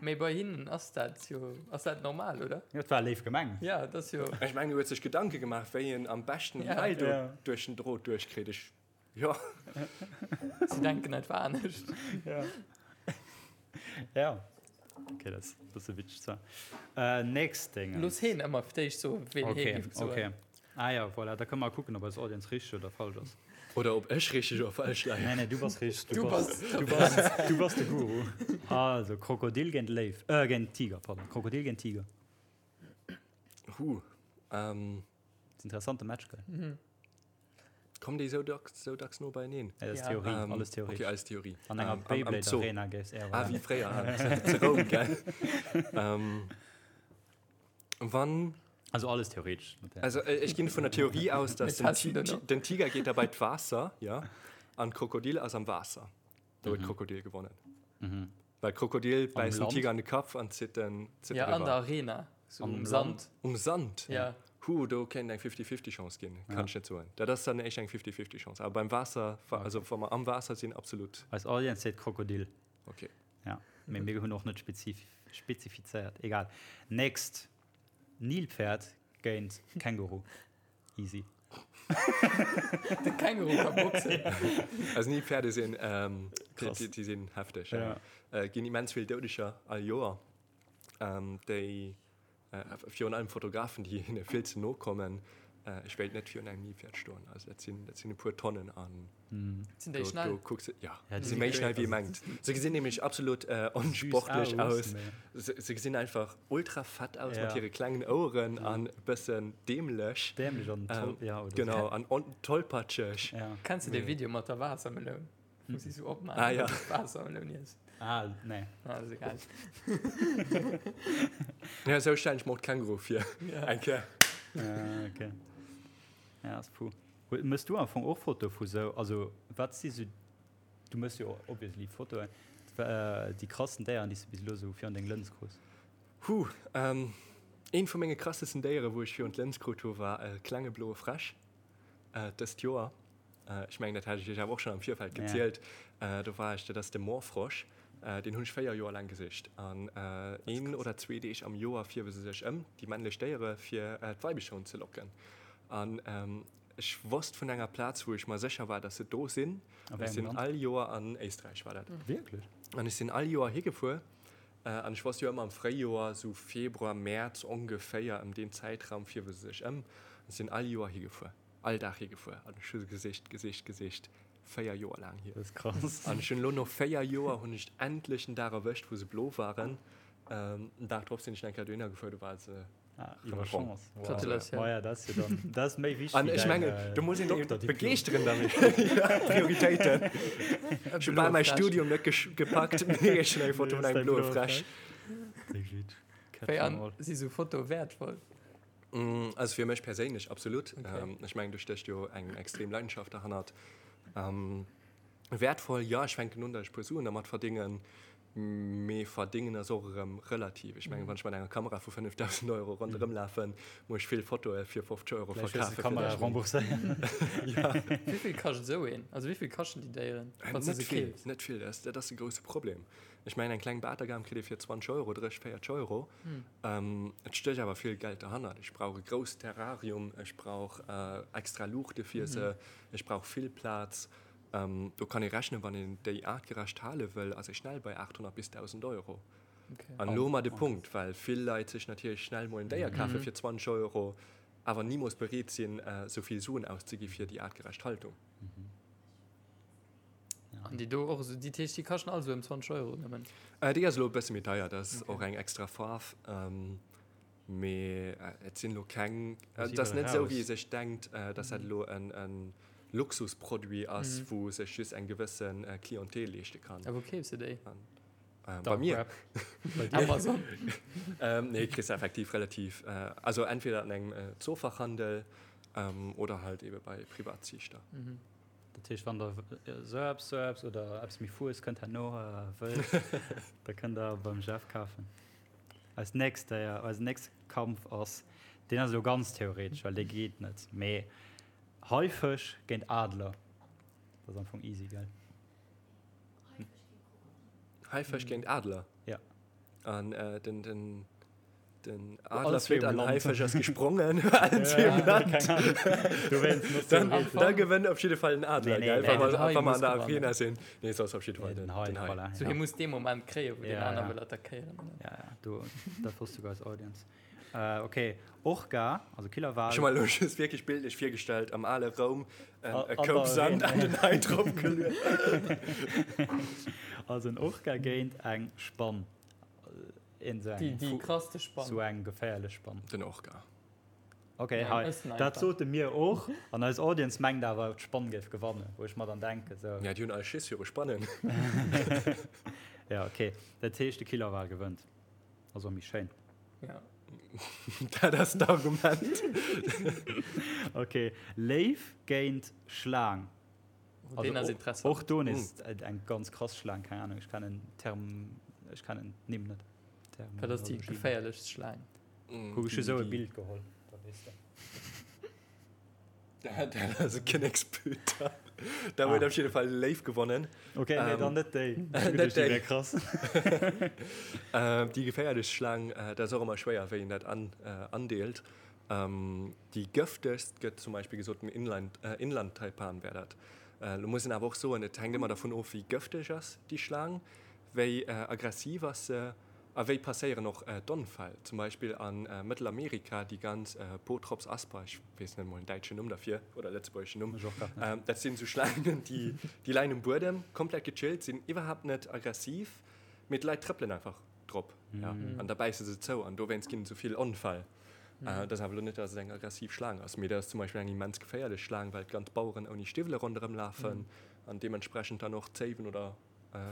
Mee bei hinnen ass dat jo, ass dat normal, oder? Jo, et war léif gemengt. Ja, dat ass jo. Ech mengen, e huet sech Gedanke gemaach, wéi en am beschten déi Ja. Eil do Ja. duerch den Drot duerchkritt. Ech, jo. Si denken einfach anescht. Ja. Ja. Okay, dat ass e bësse witzeg zwar. Äh, nächst Ding. Looss heen ëmmer fir d'éischt soen, ween hee Okay, géif soen. okay. Ah ja, voilà, da kënne mer kucken, ob eis Audience richteg oder falsch ass. Oder ob ech richteg oder falsch leien. Nee, nee, du bass richteg. Du bass du bass, du bass de Guru. Also, Krokodil géint Léiw, äh, géint Tiger, pardon. Krokodil géint Tiger. Huh. Ähm. Das ist interessante Match, gell? Mhm. Kommen déi sou dacks, sou dacks no beieneen? Ja, das ist Ja. Theorie, Ähm, alles Theorie. Okay, alles Theorie. An enger Ähm, am- am Beyblade Zoo. Arena géifs eher Ah, wéi fréier, ah, zu Roum, gell? Ähm, wann Also alles theoretisch. Also äh, ich ginn vun der Theorie aus, dass Mit den, Tassen Ti dann den Tiger geht dabei d'Waasser, ja, an Krokodil ass am Waasser. Da huet Krokodil gewonnen. Mhm. Well Krokodil bäisst den Land? Tiger an de Kapp an zitt den zitt Ja, den an der riwwer. Arena. So Am um Land? Sand. Um Sand? Ja. Huh, do kéint eng 50-50 Chance ginn, kann ech net soen. Dat ass dann éischter eng 50-50 Chance. Awer beim Waasser, wa, also wa mer am Waasser sinn, absolut. Eis Audience seet Krokodil. Okay. Ja, mee mir hunn och net spezif spezifizéiert. Egal. Next. Nilpferd géint Känguru. Easy. De Känguru ka boxen. Also Nilpferde sinn, ähm, déi, Krass. déi, déi sinn hefteg. Ja. Äh, ginn immens vill Doudeger all Joer. Ähm, déi, äh, virun allem Fotografen, déi hinne vill ze no kommen. Äh, ech wéilt net virun engem Nilpferd stoen. Also dat sinn, dat sinn e puer Tonnen an Sinn déi do, schnell? do kucks de, ja, Ja, déi déi si méi si schnell wéi ee also mengt. Se gesinn nämlech absolut äh, onsportlech Süß aus. mee- Se, se gesinn einfach ultra fett aus Ja. mat hire klengen Oueren an e bëssen dämlech. Dämlech an toll, Ähm, ja, oder Genau, an on tollpatscheg. So. Ja. Kenns du dee Video mat der Waassermeloun? Wou si sou opmaachen, Ah, ja. dass et Waassermeloun iess. Ah, nee. Ah, ass egal. Ja, sou stellen ech mer och d'Känguru vir. Ja. Eng Kéier. Ja, okay. Ja, ass puh. Mëss du am Fong och Fotoe vu sou, also wat si sou, du mëss jo obviously Fotoen, déi krassen Déieren, déi s du bis elo sou virun deng Lëns krus? Huh, eent vu menge krassesten Déiere wou ech virun d'Lëns krut hu war e klenge bloe Fräsch dëst Joer. Ech mengen dat hat ech iech awer och schonn am Virfeld gezielt. Do war ech, dat ass de Moorfrosch, deen hunn ech 4 Joer laang gesicht an een oder zwee Deeg am Joer fierwe se sech ëm, déi männlech Déiere, fir d'Weibecher unzelocken. An ech wosst vun enger Plaz, wou ech mer sécher war, dass se do sinn. A wéi Ech engem sinn Land? all Joer an Éisträich war dat. Wierklech? An ech sinn all Joer higefuer. An ech wosst jo ëmmer am Fréijoer, sou Februar, Mäerz ongeféier, ëm deen Zäitraum fierwe se sech ëm. An ech sinn all Joer higefuer, all Dag higefuer. An ech hu se gesicht, gesicht, gesicht, 4 Joer laang hier. Dat ass krass. An ech hunn elo no 4 Joer hunn ech endlech den Dag erwëscht, wou se blo waren. Den Dag drop sinn ech eng Kéier dohinner gefuer, do ware se Ah, iwwer Chance. Wow. Gratulatioun. Ma ja, dat ass jo dann, dat ass méi wichteg. An ech mengen, do muss een eben begeeschteren damit. Ja, Prioritéiten. Ech hu bal mäi Studium net gepackt, mee ech hunn eng Foto vun engem bloe Fräsch. Wéi an si sou Fotoe wäertvoll? Also fir mech perséinlech absolut. Okay. Ech mengen, do stécht jo eng extrem Leidenschaft derhannert. Wäertvoll, jo, ech fänken un, datt ech e puer Suen dermat verdéngen. Mee verdéngen ass och erëm relativ. Ech mengen, wann ech mat enger Kamera vu 5.000 Euro ronderëm lafen, muss ech vill Fotoe fir 50 Euro Vläicht hues verkafen. de Kamera rembourséieren. Ja. Wéi vill kascht esou een? Also wéi vill kaschten déi Déieren, wann s de Net se vill, keefs? net vill. Dat ass, dat ass de grousse Problem. Ech mengen, eng kleng Batergam kritt ee fir 20 Euro, 30, 40 Euro. Et stécht awer vill Geld derhannert. Ech brauch e grousst Terrarium, ech brauch extra Luuchte fir se, ech brauch vill Plaz. Do kann ee rechnen, wann een déi aartgerecht hale wëll, ass ee schnell bei 800 bis 1.000 Euro. An elo hu mer de Punkt, well vill Leit sech natierlech schnell mol en Déier kafe fir 20 Euro, awer nimools bereet sinn, esou vill Suen auszegi fir déi aartgerecht Haltung. An déi do och esou, déi heescht, déi kaschten all esou ëm 20 Euro nëmmen? Déi ass elo e bësse méi deier, dat ass och eng extra Faarf. Mee et sinn elo keng, et ass net esou, wéi ee sech denkt, dass dat elo en Luxusproduit ass, wou sech just eng gewësse Clientèle leeschte kann. A wou keefs de déi? Bei mir. Bei dir? Amazon? Nee, kriss de effektiv relativ, also entweder an engem Zoofachhandel oder halt ebe bei Privatziichter. Dat heescht, wann der esou eppes, esou eppes oder eppes méi Fues kënnt herno wëllt, da kënnt der beim Jeff kafen. Eist nächst Déier, eisen nächste Kampf ass, deen ass elo ganz theoretesch, well dee geet net, mee Haifësch géint Adler. Dat ass am Fong easy, gell? Haifësch géint Adler? Ja. An äh, den, den, den Adler flitt an Haifësch ass gesprongen. Allen zwee um Land. Dann, da gewënnt op jidde Fall den Adler, gell? Wa mer, wa mer an der Arena sinn. Nee, soss op jidde Fall den, den Hai. Voilà, so, hie muss dee Moment kréien, wou den aner wëll attackéieren. Ja, ja, do, dat wosst souguer eis Audience. Äh, okay, Orca, also Killerwal. Ech hu mer elo just wierklech bildlech virgestallt, am ale Roum, e Koup Sand an den Hai drop geluet. Also en Orca géint eng Spann. Een sou eng. Déi krasste Spann. Sou eng geféierlech Spann. Den Orca. Ok, hei, dat sote mir och. An eis Audience mengt awer, d'Spann géif gewannen, wou ech mer dann denken, sou. Ja, déi hunn all Schiss viru Spannen. Ja, ok. Dat heescht, de Killerwal gewënnt. Ass och méi schéin. Ja. Dat ass d'Argument. Ok, Léiw géint Schlaang. Oh, deen ass interessant. Och do nees eng ganz krass Schlaang, keng Ahnung, ech kennen d'Term, ech kennen d'Nimm net. Wat ass déi geféierlechst Schlaang? Kuck, ech hu sou e Bild geholl, da weess de. Dat ass e Kinneksbüter. Da huet op jidde Fall de Léiw gewonnen. Ok, nee, dann net déi. Net déi. Wär krass. Déi geféierlechst Schlaang, dat ass och ëmmer schwéier, wéi een dat andeelt. Déi gëftegst gëtt zum Beispill gesot, den Inland-Taipan wär dat. Lo muss een awer och soen, et hänkt ëmmer dervun of, wéi gëfteg ass déi Schlaang, wéi aggressiv ass se a wéi passéieren och d'Onfäll. Zum Beispill a Mëttelamerika, déi ganz Bothrops asper, ech weess net emol den däitschen Numm derfir oder lëtzebuergeschen Numm, dat sinn esou Schlaangen, déi leien um Buedem, komplett gechillt, sinn iwwerhaapt net aggressiv, mee d'Leit trëppelen einfach drop an da bäisse se zou an dowéinst ginn et esou vill Onfäll. Dat ass awer elo net, datt et eng aggressiv Schlaang ass, mee dat ass zum Beispill eng immens geféierlech Schlaang, well d'ganz Baueren ouni Stiwwele ronderëm lafen an deementsprechend dann och Zéiwen oder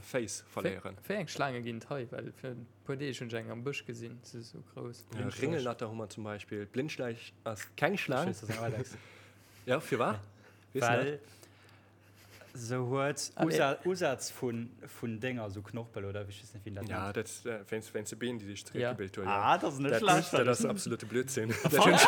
Féiss verléieren. Wéi eng Schlaange ginn et hei? Well fir e puer Deeg hunn ech eng am Bësch gesinn, se ass esou grouss. Ringelnatter hu mer zum Beispill. D'Blindschläich ass keng Schlaang. Jo, firwat? Weess du dat? Se huet Usätz vun Dénger, sou Knorpel oder ech weess net, wéi een dat nennt. Ja, dat wéinst wéinst de Been, déi sech zeréckgebilt huet. Ah, dat ass net schlecht. Dat ass absolute Blödsinn. Dat hunn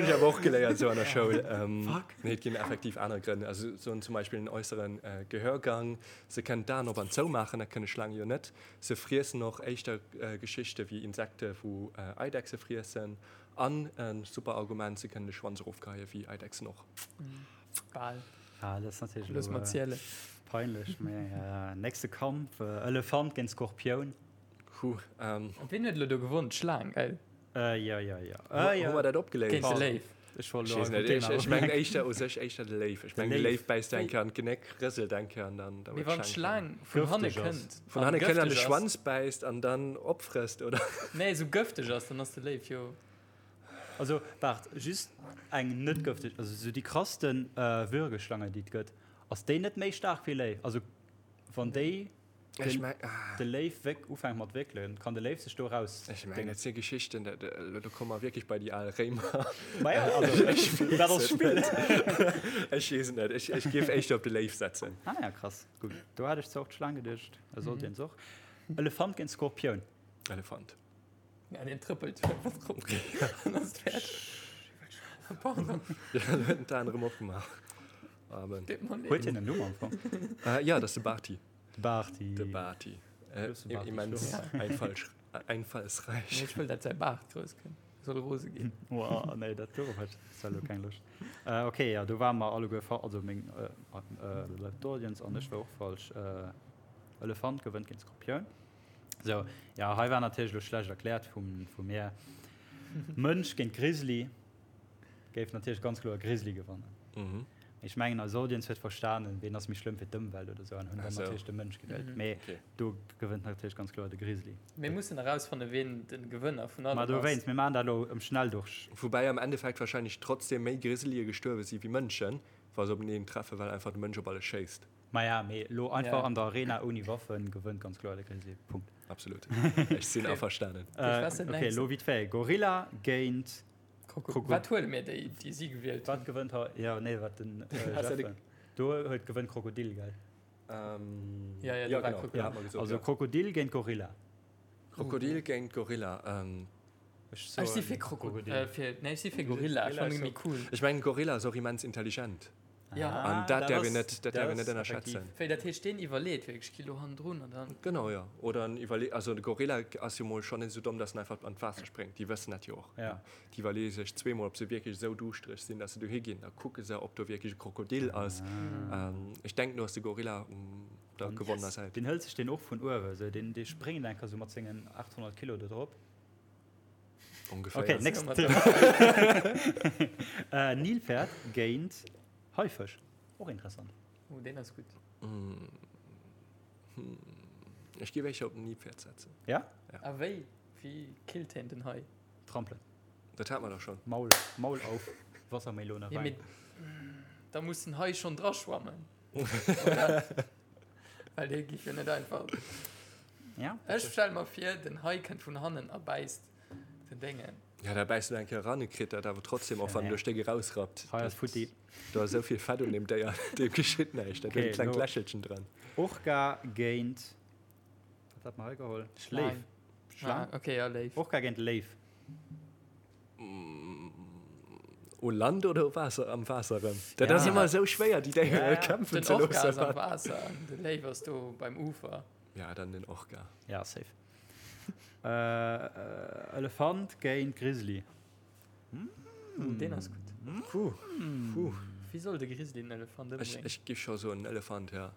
ech awer och geléiert esou an der Schoul. Fuck. Nee, et ginn effektiv aner Grënn. Also se hunn zum Beispill en äussere Gehörgang. Se kënnen d'Aen op an zou maachen, dat kënne Schlaange jo net. Se friessen och éischter Geschichte wéi Insekte wou Eidechse friessen. An e super Argument, se kënnen de Schwanz erofgeheien, wéi Eidechsen och. Bal. Ah, dat ass natierlech Looss elo mer zielen. peinlech, mä nächste Kampf, Elefant géint Skorpioun. Huh, ähm. Wien huet elo do gewonn? D'Schlaang, gell? Jo, jo, jo. Hu mer dat opgeléist? Géint de Léiw. Ech wollt elo Ech weess einfach net, Thema ech mengen éischter u sech éischter de Léiw. Ech mengen de Léiw bäisst eng Kéier an d'Genéck, rëselt eng Kéier an dann da Mee huet wann d'Schlaang vun hanne Gëfteg ass. kënnt Vun an hanne kënnt an de gëfteg ass. Schwanz bäisst an dann opfrësst, oder? Nee, esou gëfteg ass, dann ass de Léiw jo. Also waart, just eng net gëfteg, also sou déi krassten Würgeschlange déi et gëtt, ass déi net méi staark wéi Léiw? Also wann déi Ech den, meng, ah. de Léiw wéck ufänkt mat wéckelen, kann de Léiw sech do raus Ech mengen, dat si Geschichten, dat, elo do komme mer wierklech bei déi al Réimer. Maja, also Ech weess dat ass et Spill. net. Ech weess et net. Ech, ech géif éischter op de Léiw setzen. Ah ja, krass. Gutt, do hat ech zwar och d'Schlaang geduecht, e sollt een och. Elefant géint Skorpioun. Elefant. Ja, deen trëppelt einfach drop. Dann ass et fäerdeg. Pardon. Ja, lo huet en d'Aen erëm opgemaach. Amen. Deet mer leed. Huet hien en Numm am Fong? Äh, ja, dat ass de Barty. De Barty. De Barty. Äh, Grousse Barty, immens sure. einfallsch einfallsreich. Ech wëll, dat säi Baart grouss kënnt. Soll rose ginn. Wow, nee, dat dorop hat ech zwar elo keng Loscht. Äh, okay, ja, do ware mer alleguer fa also meng äh, äh, d'Audience an ech war och falsch. Äh, Elefant gewënnt géint Skorpioun. So, ja, hei war natierlech elo schlecht erkläert vum, vu mir. Mënsch géint Grizzly géif natierlech ganz kloer Grizzly gewannen. Mhm. Ech mengen eis Audience huet verstanen, ween ass méi schlëmm fir d'Ëmwelt oder sou an hunn dann natierlech de Mënsch gewielt. Mee do gewënnt natierlech ganz kloer de Grizzly. Mir mussen erausfanne ween de Gewënner vun allem ass. Ma dowéinst, mir maachen dat elo am Schnelldurch. Woubäi am Endeffekt wahrscheinlech trotzdem méi Grizzlye gestuerwe si wéi Mënschen, wa se openeen treffen, well einfach de Mënsch op alles schéisst. Maja, mee elo einfach an der Arena ouni Waffen gewënnt ganz kloer de Grizzly. Punkt. Absolut. Ech sinn averstanen. Ok, elo vite fait, Gorilla géint. Krokodil. Wat huele mir déi, déi si gewielt hunn? Wat gewënnt hei? Jo, nee, wat den Jeff. Do huet gewënnt Krokodil, gell? Ja, ja, do war Krokodil. Ja, also Krokodil géint Gorilla. Krokodil géint Gorilla. Ech si fir Krokodil. Nee, ech si fir Gorilla. Ech fannen déi méi cool. Ech mengen, Gorilla ass och immens intelligent. Ja. An dat däerf een net, dat däerf een net ënnerschätzen. Wéi, dat heescht, deen iwwerleet wierklech, Kilo hannendrun an dann. Genau, jo. Oder en iwwerleet, also de Gorilla ass jo mol schonn net esou domm, dass en einfach an d'Waasser spréngt. Déi wëssen dat jo och. Ja. Déi iwwerleeë sech zweemol, ob se wierklech esou duuschtereg sinn, dass se dohi ginn. Da kucke se, ob do wierklech e Krokodil ass. Ech denken, do ass de Gorilla um der gewonnener Säit. Deen hëlt sech deen och vun uewe, esou, deen, dee spréngt enker esou mat sengen 800 Kilo do drop. Ongeféier. Okay, next Thema. äh, Nilpferd géint Haifësch. Och interessant. Oh, deen ass gutt. Mm. Hm. Ech géif éischter op den Nilpferd setzen. Ja? Ja. A wéi? Wéi killt hien den Hai? Trampelen. Dat hat mer dach schon. Maul, Maul auf, Wassermelone Ja, rein. mee da muss den Hai schon dra schwammen. Oder? Well dee giff jo net einfach. Ja. Ech stelle mer vir, den Hai kënnt vun hannen a bäisst den Déngen. Ja, da bäisst en eng Kéier eran, e kritt dat awer trotzdem, och wann en do e Stéck erausrappt. Hai ass futti. Do ass esou vill Fett un deem Déier, deem geschitt näischt. Dat huet e Okay, klengt lo. Lächelchen dran. Orca géint, wat hat mer hei geholl? Schlang. Léif. Schlang? Ah, okay, ja, Léif. Orca géint Léif. U Land oder u Waasser, am Waasser erëm? Dat Ja. ass ëmmer esou schwéier, déi Déiere Ja, ja. kämpfen Den ze Orca ass am loossen. Waasser an de Léif ass do beim Ufer. Ja, dann den Orca. Ja, safe. Äh, Elefant géint Grizzly. Mm. Deen ass gutt. Puh. Puh. Wéi soll de Grizzly den Elefant Ech, ëmbréngen? ech giff scho soen Elefant, ja.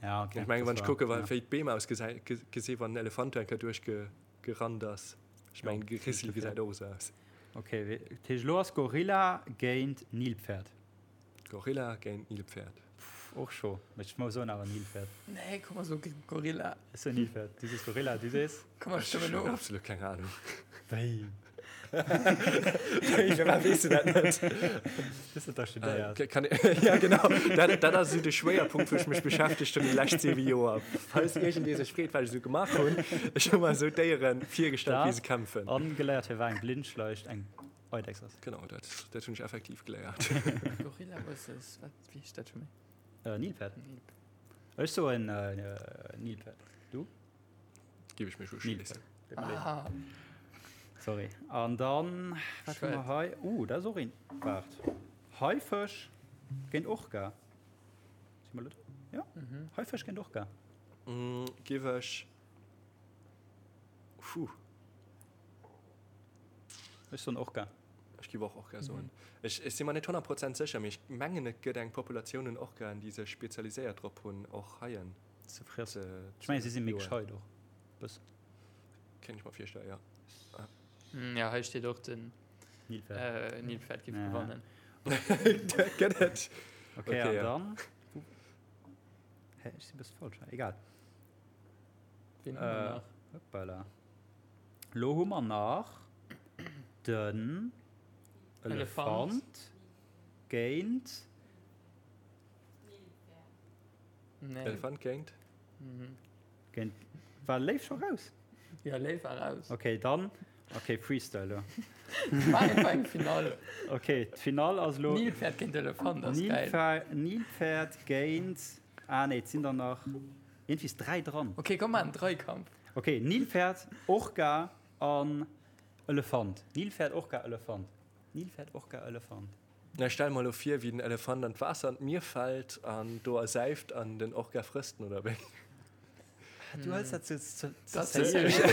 Ja, okay. Ech mengen, wann ech Das war- kucke, wa ja. wéi d'Beem ausgesäi ge gesi wann den Elefant do eng Kéier duerchge gerannt ass. Ech mengen, de Grizzly gesäit och esou aus. Okay, wéi- dat heescht, elo ass Gorilla géint Nilpferd. Gorilla géint Nilpferd. Pff, och scho. Mee ech muss soen awer Nilpferd. Nee, komm mer soe Gorilla. Ech soen Nilpferd. Du sees Gorilla, du sees? Komm mer stëmmen Ech hunn of. absolut keng Ahnung. Wéi? Wéi, firwat weess du dat net? Du hues dat dach studéiert. Äh, kann, ja, genau. Dat, dat ass esou de Schwéierpunkt, wou ech mech beschäftegt hunn déi lescht 7 Joer. Falls iergendee sech freet, wat ech esou gemaach hunn, ech hu mer esou d'Déiere virgestallt, wéi se kämpfen. An geléiert, firwat eng Blindschleich eng Eidechs ass. Genau, dat, dat hunn ech effektiv geléiert. Gorilla versus, wat, wéi heescht dat scho méi? Äh, Nilpferd. Nilpferd. Ech soen äh, Nilpferd. Du? Gif ech mech uschléissen. Ah. Sorry. An dann, wat hu mer hei? Uh, dat ass och een. Waart. Haifësch géint Orca. Si mer elo do? Ja. Mhm. Haifësch géint Orca. Mm, gif ech. Puh. Ech soen Orca. Ech giff och Orca soen. Ech, ech si mer net 100 Prozent sécher, mee ech mengen et gëtt eng Populatioun un Orcaen, déi sech spezialiséiert drop hunn, och Haien ze friessen. Ze, Ech mengen, si si méi joen. gescheit och bëssen. Kéint ech mer virstellen, ja. Ja, hei steet och den Nilpferd. äh, Nilpferd giff Ja. gewannen. Gëtt et. Okay, Okay, an ja. dann. Hä, ech si bësse falsch. Egal. Wien hu mer Äh, nach? Hoppala. Lo hu mer nach den Elefant. Elefant géint. Nee. Elefant géint? Mhm. Géint. War Léif scho raus? Ja, Léif war raus. Okay, dann. Okay, Freestyle lo. War einfach eng Finale. Okay, d'Finall ass lo. Nilpferd géint Elefant ass geil. Nilpferd, Nilpferd géint. Ah nee, et sinn der nach. Iergendwéi ist 3 dran. Okay, komm mal en Dreikampf. Okay, Nilpferd, Orca an Elefant. Nilpferd, Orca, Elefant. Nilpferd, Orca, Elefant. Na, stell mer elo vir, wéi den Elefant an d'Waasser an d'Mier fält an do ersäift an den Orca frësst en, oder wéi? Du hëls dat ze ze seriö.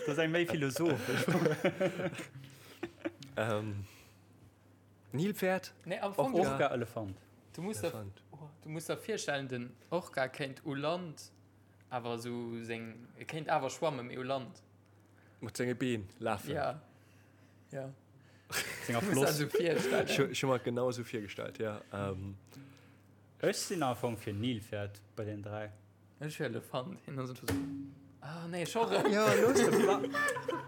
Dat ass eng méi philosophesch Fro. Nilpferd? Nee, am Fong. Orca, Elefant. Du muss der, du muss der virstellen, den Orca kéint u Land awer esou seng, e kéint awer schwammen, mee u Land. Mat senge Been lafen. Ja. Ja. Senger Floss. Ech hu mer et genau esou virgestallt, ja. Ech sinn am Fong fir Nilpferd bei den 3. Ech fir Elefant. Hien ass einfach sou. Ah nee, scho rëm. Jo, looss de Pla.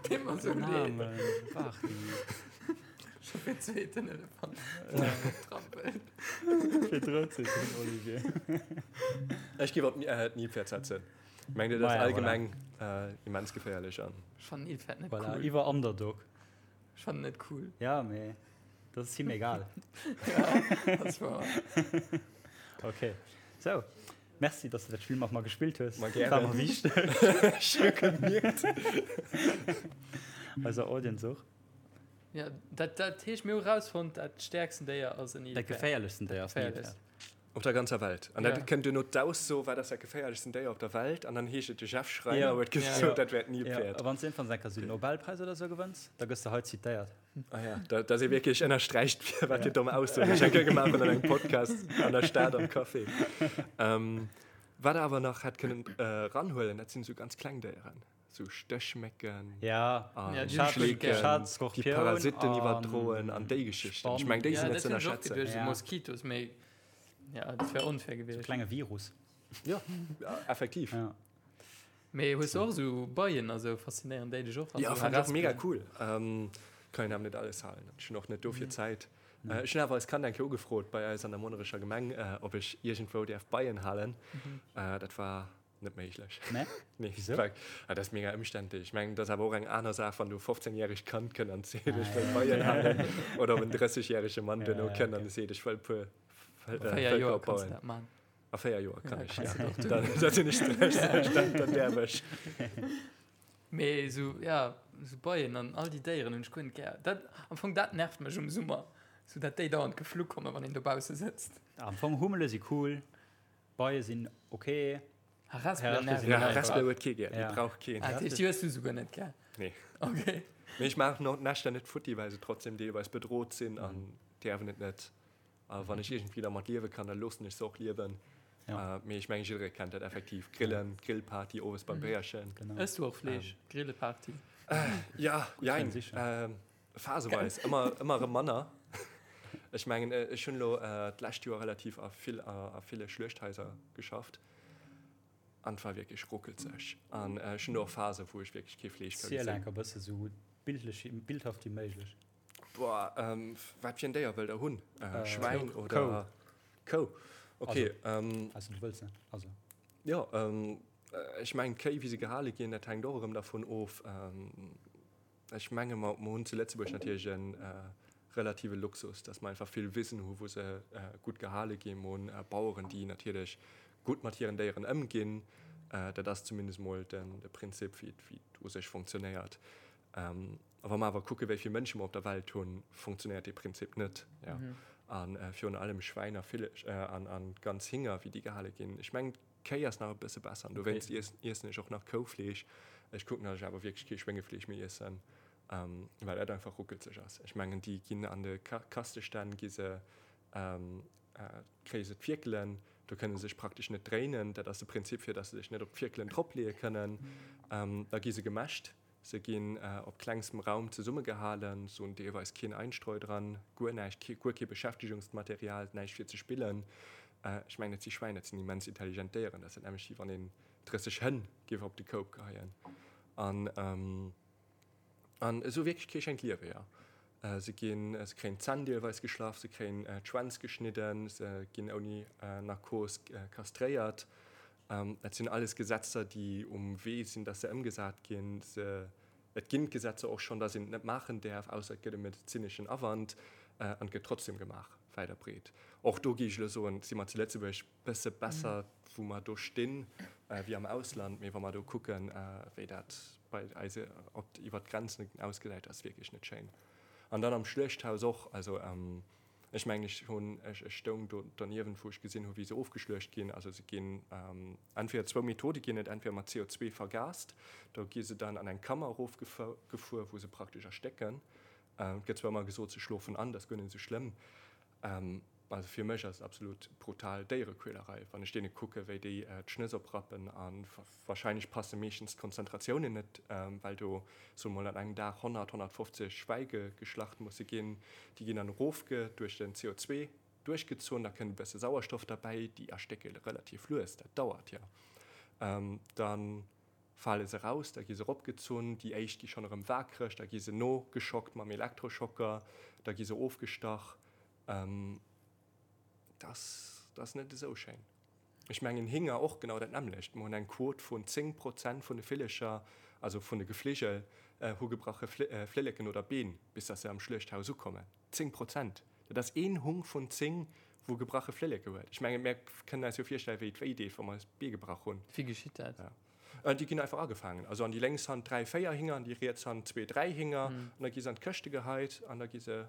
Deet mer sou leed. Namen, Barty. Scho fir zweeten Elefant trampelt. Fir drëtzen, Olivier. Ech géif op d'Nilpferd setzen. Mengt Dir, dat ass allgemeng immens geféierlech an. Ech fannen Nilpferd net cool. Voilà, iwwer Underdog. Ech fannen net cool. Ja, mee dat ass him egal. Ja, dat ass wouer. Okay, sou. Merci, dass du dat Spill mat mer gespillt hues. Ma gären. War mer wichteg. Ech hu gemierkt. Eiser Audience och. Ja, dat, dat heescht, mir hu rausfonnt, dat stäerksten Déier ass en Dat Nilpferd. geféierlechsten Déier ass en Nilpferd. Op der ganzer Welt. An dat Ja. kënnt duerno d'Ausso, wat ass dat geféierlechsten Déier op der Welt? An dann heescht et, de Jeff Schreiner Ja. huet Ja. gesot, dat wär Ja, d'Nilpferd. a wann s de iergendwann eng Kéier sou en Nobelpräis oder sou gewënns, da gëss de hei zitéiert. Ah ja, da, dass ee wierklech ënnersträicht, wat fir domm Aussoen ech eng Kéier gemaach hunn an engem Podcast an der Stad am Café. Ähm, wat der awer nach hätt kënnen äh, ranhuelen, dat sinn esou ganz kleng Déieren, sou Stéchmécken Ja, an Ja, déi hunn ech Schleeken, Schad, déi Skorpioun Parasitten an iwwerdroen an déi Geschichten. Ech meng, déi Ja, sinn net dat ze hunn ech och ënnerschätzen. geduecht, sou Ja. Moskitos, mee ja, dat wär onfair gewiescht. Klenge Virus. Ja, effektiv. Ja. Mee hues du och esou Beien a sou? Faszinéieren déi dech och? Ja, fand ech och mega cool. Ähm, kann een awer net alles halen. Ech hunn och net dofir Zäit. Äh, ech hunn awer eis Kand eng Kéier ugefrot bei eis an der Monnerecher Gemeng, äh, ob ech iergendwou däerf Beien halen. Äh, dat war net méiglech. Nee? Nee, Wieso? war, ah, dat ass mega ëmständlech. Ech mengen, dat ass awer och eng aner Saach, wann du e 15 järegt Kand kënnt an seet, ech wëll Beien halen, oder ob en 30 järege Mann duerno kënnt an seet, ech wëll e puer A Vëlker 4 Joer kanns opbauen. du dat man. A 4 Joer kann Ja, ech, kannst ja. du doch tun. Dann, dann sinn ech 30, dann, dann däerf ech. Mee esou, ja, esou Beien an all déi Déieren hunn ech guer net gär. Dat, am Fong, dat nervt mech um Summer, esou dat déi dauernd geflu kommen, wann een dobausse sëtzt. Am Fong, Hummele si cool, Beie sinn ok. Harespelen nerven Ja, mech einfach. Harespele huet kee gär, déi Ja. brauch keen. Ah, dat heescht, déi hues du souguer net gär? Nee. Okay. Mee ech maachen och d'Näschter net futti, well se trotzdem deelweis bedroht sinn an däerfen et net. A wann ech iergendwéi dermat liewe kann, da loossen ech se och liewen. Ja. Mee ech mengen, jidderee kennt dat effektiv. Grillen, Grillparty owes beim Béierchen. Genau. Ëss du och Fleesch? Grilleparty? Ja, jein. Gutt, sicher. Phaseweis. Ëmmer, ëmmer erëm manner. Ech mengen, ech hunn elo d'lescht Joer relativ a vill, a ville Schluechthaiser geschafft. An et war wierklech ruckelzeg. An ech hunn do och Phasen, wou ech wierklech kee Fleesch ka Ziel gesinn. enker bësse sou bildlech, bildhaft wéi méiglech. Boah, ähm, wat fir en Déier wëllt der hunn? Äh, Schwäin Kou. oder Kou? Okay, ähm, Also du wëlls net, also. jo, ähm, ech mengen d'Kéi wéi se gehale ginn, dat hänkt och erëm dervun of. Ähm, ech menge mer mer hunn zu Lëtzebuerg natierlech en äh, relative Luxus, datt mer einfach vill Wisen hu wou se äh, gutt gehale ginn. Mer hunn äh, Baueren, déi natierlech gutt mat hiren Déieren ëmginn. Äh, dat ass zumindest mol den de Prinzip wéi et wéi et u sech funktionéiert. Ähm, A wa mer awer kucke wéi vill Mënsche mer op der Welt hunn, funktionéiert dee Prinzip net. Ja. A virun allem Schwäin a Ville an, an ganz Hinger, wéi déi gehale ginn. Ech mengen, d'Kéi ass nach e bësse besser an dowéinst okay. iessen ech och nach Koufleesch. Ech kucken, datt ech awer wierklech kee Schwéngefleesch méi iessen, ähm, well dat einfach ruckelzeg ass. Ech mengen, déi ginn an de Ka Kastestänn gi se ähm, äh, kréie se d'Fierkelen, do kënne se sech praktesch net dréinen. Dat ass de Prinzip, fir datt se sech net op d'Fierkelen dropleeë kënnen. Ähm, da gi se gemäscht. Se ginn op klengstem Raum zesummegehalen, se hunn deelweis keen Einstreu dran, guer näischt, guer kee Beschäftegungsmaterial, näischt fir ze spillen. Ech mengen, dat si Schwäin, dat sinn immens intelligent Déieren, dat ass dat nämmlecht wéi wann een 30 Hënn géif op de Koup geheien. An an esou wierklech kee schéint Liewe, jo. Se ginn, se kréien d'Zänn deelweis geschlaff, se kréien d'Schwänz geschnidden, se ginn ouni Narkos kastréiert. Dat sinn alles Gesetzer, déi um Wee sinn, dass se ëmgesat ginn. Se, et ginn d'Gesetzer och schonn, dass een et net maachen däerf, ausser et gëtt e medezineschen Awand, an et gëtt trotzdem gemaach, wäit a breet. Och do géif ech elo soen, si mer zu Lëtzebuerg bësse besser, wou mer do stinn, wéi am Ausland. Mee wa mer do kucken, wéi dat bei eis op, iwwert d'Grenzen ausgesäit, ass wierklech net schéin. An dann am Schluechthaus och, also. Ech mengen, ech hunn, ech stoung do derniewent, wou ech gesinn hu wéi se ofgeschluecht ginn. Also se ginn, entweder zwou Methode ginn et, entweder mat CO2 vergast, do gi se dann an eng Kammer erofgefuer, wou se praktesch erstécken. Et gëtt zwar ëmmer gesot, se schlofen an, dat ass guer net esou schlëmm. Also fir mech ass et absolut brutal Déierequälerei, wann ech deene kucke wéi déi d'Schnëss oprappen a wahrscheinlech passe meeschtens d'Konzentratiounen net, well do soe mol an engem Dag 100, 150 Schwäi geschlacht musse ginn. Déi ginn dann erofge duerch den CO2 duerchgezunn, da kënnt e bësse Sauerstoff derbäi, déi erstécke relativ lues, dat dauert jo. Dann fale se raus, da gi se eropgezunn, déi éischt gi schonn erëm waakreg, da gi se nogeschockt mam Elektroschocker, da gi se ofgestach. Dat ass net esou schéin. Ech mengen Hinger och genau dat nämmlecht. Mer hunn eng Quot vun 10 Prozent vun de Villecher, also vun de Gefligel, hu gebrache Flilleken oder Been, bis datt se am Schluechthaus ukommen. 10 Prozent! Dat ass een Hung vun 10, wou gebrache Flilleke huet. Ech mengen, mär kënnen eis jo virstellen, wéi et wéi deet, wa mer eis d'Bee gebrach hunn. Wéi geschitt dat? Déi ginn einfach agefaangen. Also an déi lénks Hand 3, 4 Hinger, an déi riets Hand 2, 3 Hinger. An da gi se an d'Këschte geheit an da gi se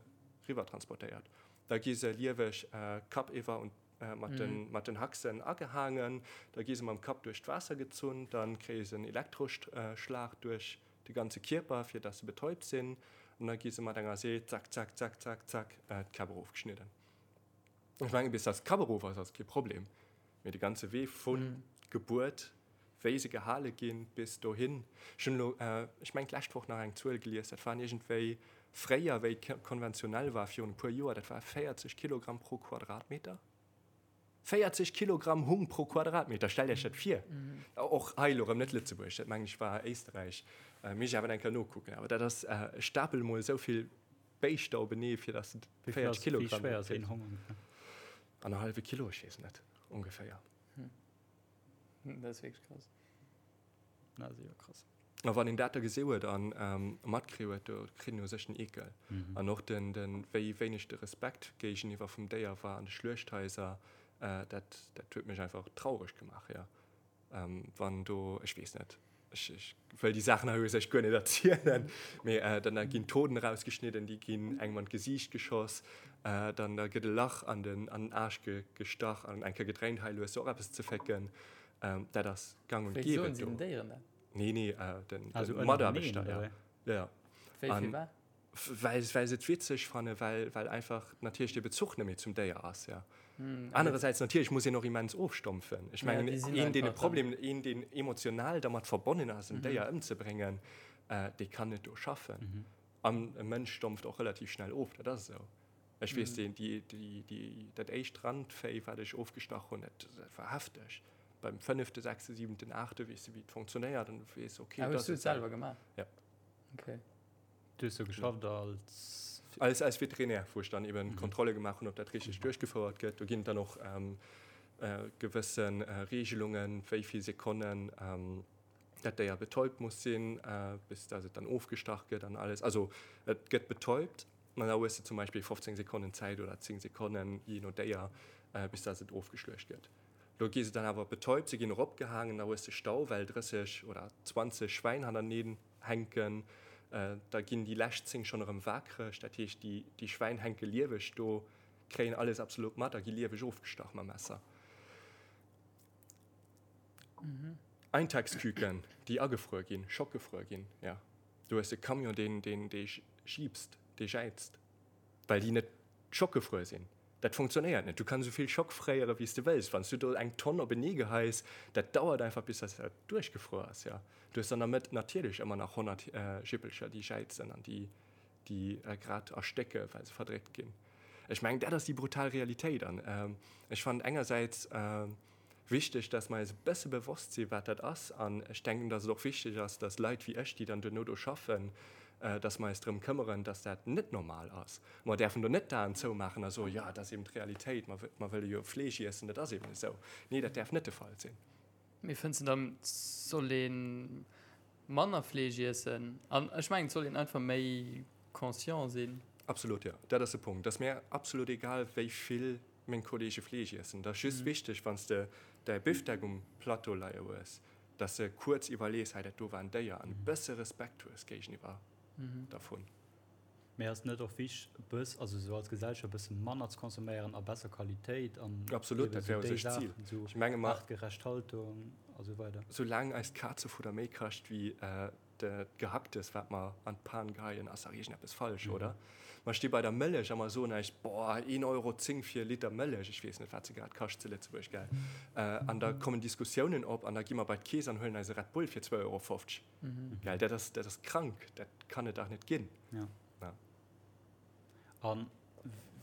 riwwer transportéiert. Da gi se lieweg kappiwwer und mat den, mat den Haxen agehaangen. Da gi se mam Kapp duerch d'Waasser gezunn. Da kréie se en Elektroschlag duerch de ganze Kierper, fir dass se betäubt sinn. An da gi se mat enger See, zack, zack, zack, zack, zack, d'Käpp erofgeschnidden. Ech mengen, bis dass d'Kapp erof ass, ass kee Problem. Mee de ganze Wee vun Gebuert, wéi se gehale ginn, bis dohin. Ech hunn elo, ech mengen d'lescht Woch nach eng Zuel gelies, dat waren iergendwéi fréier, wéi et konventionell war, virun e puer Joer, dat war 40 Kilogramm pro Quadratmeter. 40 Kilogramm Hung pro Quadratmeter, stellt Iech dat vir! Och hei elo erëm net Lëtzebuerg, dat mengen ech war Éisterräich, misst ech awer eng Kéier nokucken. Awer dat ass, stapel emol esou vill Béischter openee, fir dass de 40 Kilogramm. Wéi schwéier ass een Hong ongeféier? Annerhallwe Kilo, ech weess net, ongeféier. Dat ass wierklech krass. Dat ass jo krass. A wann een dat da gesi huet a matkritt huet, do kritt een u sech den Eekel. An och den, den, wéi wéineg de Respekt géigeniwwer vum Déier war an de Schluechthaiser, dat, dat huet mech einfach traureg gemaach, jo. Wann do, ech weess net, ech, ech wëll déi Saachen hei u sech guer net erzielen, mee dann da ginn d'Hoden erausgeschnidden, déi ginn engem an d'Gesiicht geschoss, dann da gëtt e Lach an den, an den Aarsch ge, gestach an eng Kéier gedréint, hei elo hues du och eppes ze fécken. Dat ass gang und Wéi gäbe soen si do. den Déieren dat? Nee, nee, den, den Mataarbechter, ja. Ja, ja. Wéi, firwat? Well, well se et witzeg fannen, well, well einfach natierlech de Bezuch net méi zum Déier ass, ja. Anerersäits natierlech muss een och immens ofstompfen. Ech mengen, een, deen e Problem, een, deen emotional dermat verbonnen ass, en Déier ëmzebréngen, dee kann net do schaffen. An e Mënsch stompft och relativ schnell of, dat ass esou. Ech weess, déi, déi, déi, déi, dat éischt Randvéi, wat ech ofgestach hunn, dat, dat war hefteg. Beim fënnefte, sechste, siwenten, aachte weess de, wéi et funktionéiert an du weess, okay, Ah, dat hues du ass et selwer gemaach? Ja. Okay. Du hues do geschafft als? Als, als Veterinär, wou ech dann eben Kontrolle gemaach hunn, ob dat richteg duerchgefouert gëtt. Do ginn et dann och gewësse Regelungen, wéi vill Sekonnen dat Déier betäubt muss sinn, bis dass et dann ofgestach gëtt an alles. Also et gëtt betäubt an da hues de zum Beispill 15 Sekonnen Zäit oder 10 Sekonnen, jee no Déier, bis dass et ofgeschluecht gëtt. Do gi se dann awer betäubt, se ginn eropgehaangen, da hues de Stau, well 30 oder 20 Schwäin hannerteneen hänken, da ginn déi lescht 10 schonn erëm waakreg, dat heescht déi déi Schwäin hänke lieweg do, kréien alles absolut mat a gi lieweg ofgestach mam Messer. Eintagsküken, déi agefruer ginn, schockgefruer ginn, jo. Du hues e Camion, deen deen dee jiipst, dee jäizt, well déi net schockgefruer sinn. Dat funktionéiert net. Du kanns esou vill Schock fréiere wéi s de wëlls. Wann s du do eng Tonn openee geheis, dat dauert einfach bis dass dat duerchgefruer ass. Jo, du hues an der Mëtt natierlech ëmmer nach 100 Jippelcher déi jäizen an déi déi grad erstécke well se verdréckt ginn. Ech mengen dat ass déi brutal Realitéit an ech fannen engersäits wichteg, dass mer eis e bësse bewosst sinn, wat dat ass. An ech denken, dass et och wichteg ass, dass Leit wéi ech, déi dann duerno do schaffen, dass mer eis drëm këmmeren, dass dat net normal ass. Mer däerfen do net d'Aen zoumaachen a soen, jo, dat ass eben d'Realitéit, mer, mer wëlle jo Fleesch iessen, dat ass eben esou. Nee, dat däerf net de Fall sinn. Mee fënns de dann, et soll ee manner Fleesch iessen? An ech mengen, et soll een einfach méi conscient sinn. Absolut, jo. Dat ass de Punkt. Et ass mir absolut egal, wéi vill meng Kollege Fleesch iessen. Et ass just wichteg, wann s de däi Bifdeck um Plateau leie hues, dass de kuerz iwwerlees, hei dat do war en Déier, an e bësse Respekt hues géigeniwwer dervun. Mee ass net och wichteg e bëss, also esou als Gesellschaft e bësse manner ze consomméieren a besser Qualitéit an Absolut, dat wär u sech d'Zil. Ech menge mer, aartgerecht Haltung a sou weider. Soulaang eist Kazefudder méi kascht wéi d'Gehacktes, wat mer an d'Pan geheien, ass dach iergendeppes falsch, oder? Mer sti bei der Mëllech a mer soen eis, Boah, een Euro 10 fir e Liter Mëllech, ech weess net, wat se grad kascht zu Lëtzebuerg, gell? An da kommen Diskussiounen op an da gi mer bei d'Keess an huelen eis e Red Bull fir zwou Euro 50. Gell, dat ass, dat ass krank, dat kann et dach net ginn. Ja. Ja. An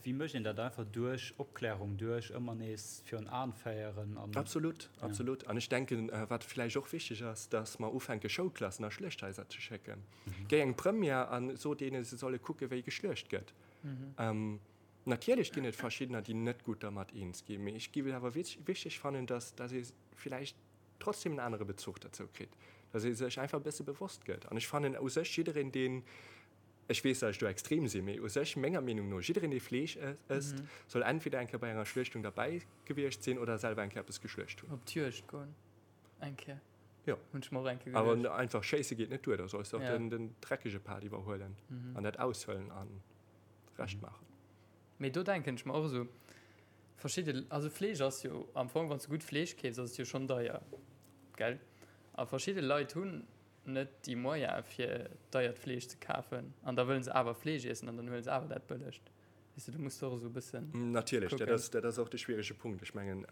wéi mécht een dat? Einfach duerch Opklärung, duerch ëmmer nees virun Aen féieren an. Absolut, absolut. An ech denken, wat vläicht och wichteg ass, dass mer ufänke Schoulklassen a Schluechthaiser ze schécken. Géi eng Première an so deene se solle kucke wéi geschluecht gëtt. Natierlech ginn et verschiddener, déi net gutt dermat eens ginn, mee ech géif et awer wichteg fannen, dass, dass ee vläicht trotzdem en anere Bezuch derzou kritt, dass ee sech einfach e bësse bewosst gëtt. An ech fannen u sech jiddereen, deen, ech weess, dass ech do extrem sinn, mee u sech menger Meenung no, jiddereen, dee Fleesch ësst, soll entweder eng Kéier bei enger Schluechtung derbäi gewiescht sinn oder selwer eng Kéier eppes geschluecht hunn. Op d'Juegd goen eng Kéier. Jo. Hunn ech mer och eng Kéier geduecht. Awer einfach schéisse geet net duer, da solls de och den dreckege Part iwwerhuelen an dat aushuelen a Recht maachen. Mee do denken ech mer och esou, Verschidde, also Fleesch ass jo am Fong, wann s de gutt Fleesch keefs, ass et jo schonn deier, gell? A verschidde Leit hunn net déi Moyene fir deiert Fleesch ze kafen an da wëllen se awer Fleesch iessen an dann huele se awer dat bëllegt. Weess de, do muss de och esou e bëssen Natierlech, dat ass, dat ass och de schwierege Punkt. Ech mengen,